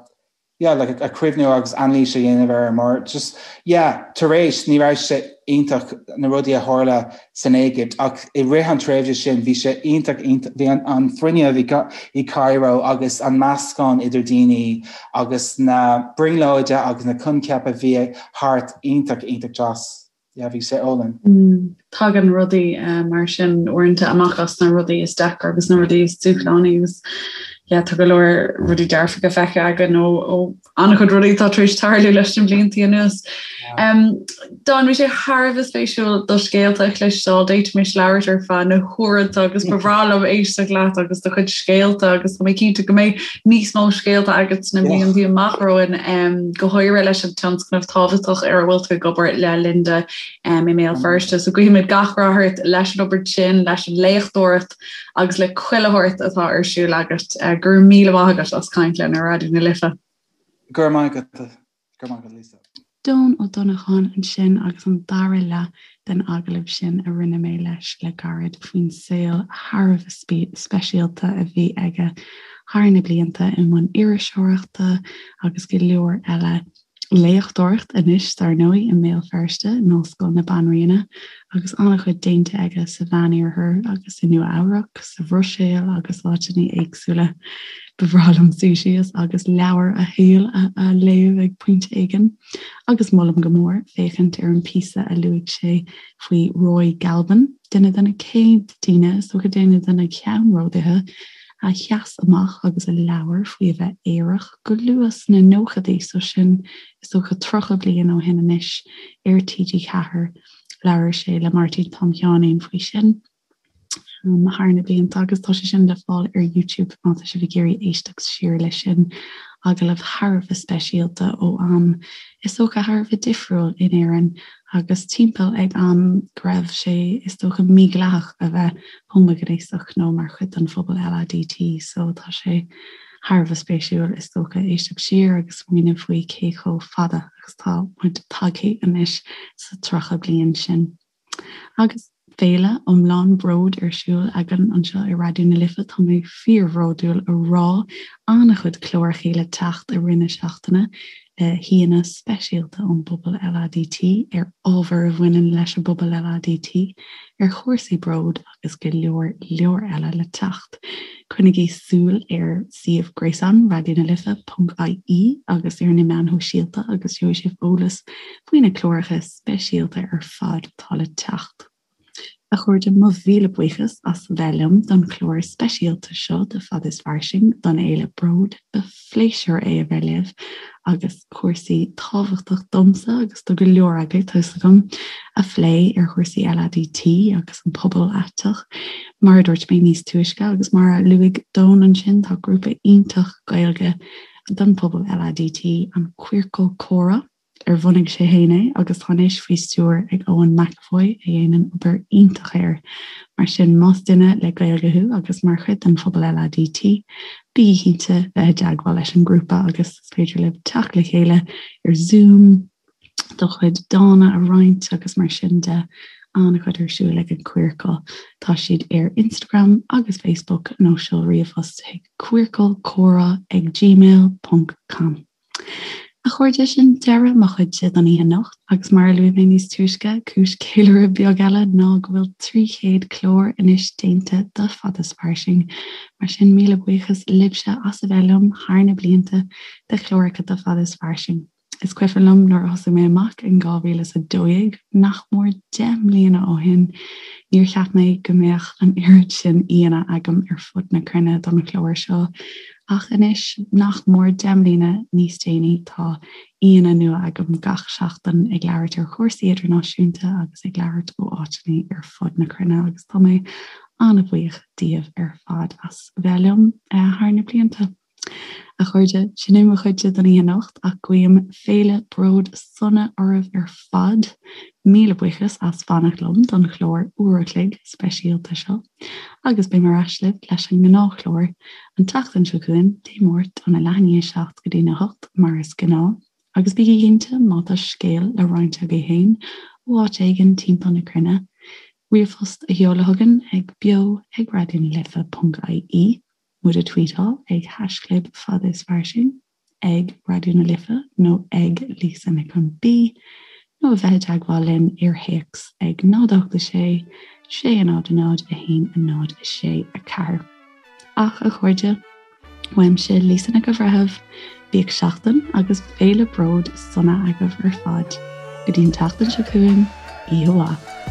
yeah like a cuimhniú agus anailís a dhéanamh air mar just yeah tar éis ní raibh sé iontach na rudaí a tharla san Éigipt ach i rith an tréimhse sin bhí sé iontach iontach bhí an an fuinneamh i i Cairo agus an meascán idir daoine agus na brionglóide agus na coincheapa a bhí thart iontach iontach deas. Yeah, bhí sé álainn. Tagann rudaí mar sin uaireanta amach as na rudaí is deacra agus na rudaí is dúshlánaí agus yeah, tá go leor rudaí dearfacha feicthe againn ó ó an-chuid rudaí atá tar éis tarlú leis na blianta anuas. Um, Don bhí sé thar a bheith spéisiúil do scéalta a chloisteáil, d'fhéadfaimis labhairt ar feadh na huaireanta agus ba bhreá liom éisteacht leat agus do chuid scéalta agus tá mé cinnte go mbeidh níos mó scéalta agat sna blianta amach romhainn, go háirithe leis an tionscnamh tábhachtach ar a bhfuil tú ag obair le Linda i mBéal Feirste. So guímid gach rath ort leis an obair sin, leis an léachtóireacht agus le chuile shórt atá ar siúl agat. Go raibh míle maith agat as caint linn ar Raidió na Life. Go raibh maith agat. Go raibh maith agat, Lisa. Don Ó Donnacháin ansin agus an dara leath den agallamh sin a rinne mé leis le gairid faoin saol thar a bheith speisialta a bhí aige thar na blianta i mbun iriseoireachta agus go leor eile, léachtóireacht anois dar ndóigh i mBéal Feirste in Ollscoil na Banríona agus an-chuid déanta aige sa Mheánoirthear agus i Nua Eabhrac, sa Bhruiséil agus áiteanna éagsúla. Ba bhreá liom suí síos agus leabhar a shaoil a léamh ag pointe éigin. Agus molaim go mór féachaint ar an píosa a luaigh sé faoi Roy Galvin, duine de na céad daoine, is dócha duine de na ceannródaithe, a sheas amach agus a labhair faoi a bheith aerach go luath sna nóchaidí, so sin is dócha 30 bliain ó shin anois, ar TG4. Labhair sé le Máirtín Tom Sheáinín faoi sin. thar na blianta agus tá sé sin le fáil ar YouTube má tá sibh ag iarraidh éisteacht siar leis sin. Agallamh thar a bheith speisialta ó am is dócha thar a bheith difriúil in Éirinn agus timpeall ag am go raibh sé is dócha mídhleathach a bheith homaighnéasach nó mar chuid den phobal LADT so tá sé thar a bheith spéisiúil is dócha éisteacht siar agus smaoineamh faoi cé chomh fada agus tá muid tagtha anois sa 30 bliain sin. Agus féile iomlán bród ar siúl againn anseo i Raidió na Life, tá mé fíorbhródúil a rá an-chuid clárachaí le teacht i rith na seachtaine le haíonna speisialta ón bpobal LADT ar ábhair a bhaineann leis an bpobal LADT, ar chúrsaí bród agus go leor leor eile le teacht. Coinnigí súil ar suíomh gréasáin Raidió na Life ponc ie agus ar na meáin shóisialta agus gheobhaidh sibh eolas faoi na cláracha speisialta ar fad atá le teacht. A chairde, mo mhíle buíochas as bheith liom don chlár speisialta seo de Fad is Fairsing don Fhéile Bród. Ba phléisiúr é a bheith libh agus cúrsaí tábhachtach domsa agus do go leor agaibh, tá fhios agam, a phlé ar chúrsaí LADT agus an pobal aiteach. Mar a dúirt mé níos túisce agus mar a luaigh Doan ansin, tá grúpa iontach Gaeilge don phobal LADT, an Queercal Comhrá, ar bhunaigh sé féin é agus tá anois faoi stiúir ag Eoin McEvoy a dhéanann obair iontach air. Mar sin, más duine le Gaeilge thú agus mar chuid den phobal LADT, bígí cinnte bheith i dteagmháil leis an ngrúpa agus is féidir libh teacht le chéile ar Zoom, do chuid dána a roinnt agus mar sin de. An-chuid ar siúl ag an Queercal. Tá siad ar Instagram agus Facebook nó seol ríomhphost chuig queercalcomhrá ag gmail ponc com. A chairde, sin deireadh mo chuidse don oíche anocht agus mar a luaigh mé níos túisce, cúis ceiliúradh beag eile ná go bhfuil 300 clár anois déanta de Fad is Fairsing. Mar sin, míle buíochas libhse as a bheith liom thar na blianta de chláracha de Fad is Fairsing. Is cuimhin liom nuair a thosaigh mé amach in 2012, nach mór 10 mbliana ó shin, níor cheap mé go mbeadh an oiread sin aíonna agam ar fud na cruinne don chlár seo. Ach anois, nach mór 10 mbliana níos déanaí, tá aíonna nua agam gach seachtain ag labhairt ar chúrsaí idirnáisiúnta agus ag labhairt ó áiteanna ar fud na cruinne agus tá mé an-bhuíoch díobh ar fad as bheith liom thar na blianta. A chairde, sin é mo chuidse don oíche anocht ach guím féile bród sona oraibh ar fad. Míle buíochas as fanacht liom don chlár uair a chloig speisialta seo. Agus beidh mé ar ais libh leis an ngnáthchlár an tseachtain seo chugainn, Dé Máirt óna leath i ndiaidh 7 go dtína 8 mar is gnáth. Agus bígí cinnte, má tá scéal le roinnt agaibh féin ó áit éigin timpeall na cruinne, ríomhphost a sheoladh chugainn ag beo ag raidionalife ponc ie, muid a tweetáil ag haischlib fad is fairsing. ag Raidió na Life nó ag Lisa Nic an B nó a bheith i dteagmháil linn ar théacs ag 0 8 6 6 0 0 1 0 6 4. Ach, a chairde, uaimse Lisa Nic an Bhreithimh, bíodh seachtain agus féile bród sona agaibh ar fad. Go dtí an tseachtain seo chugainn, oíche mhaith.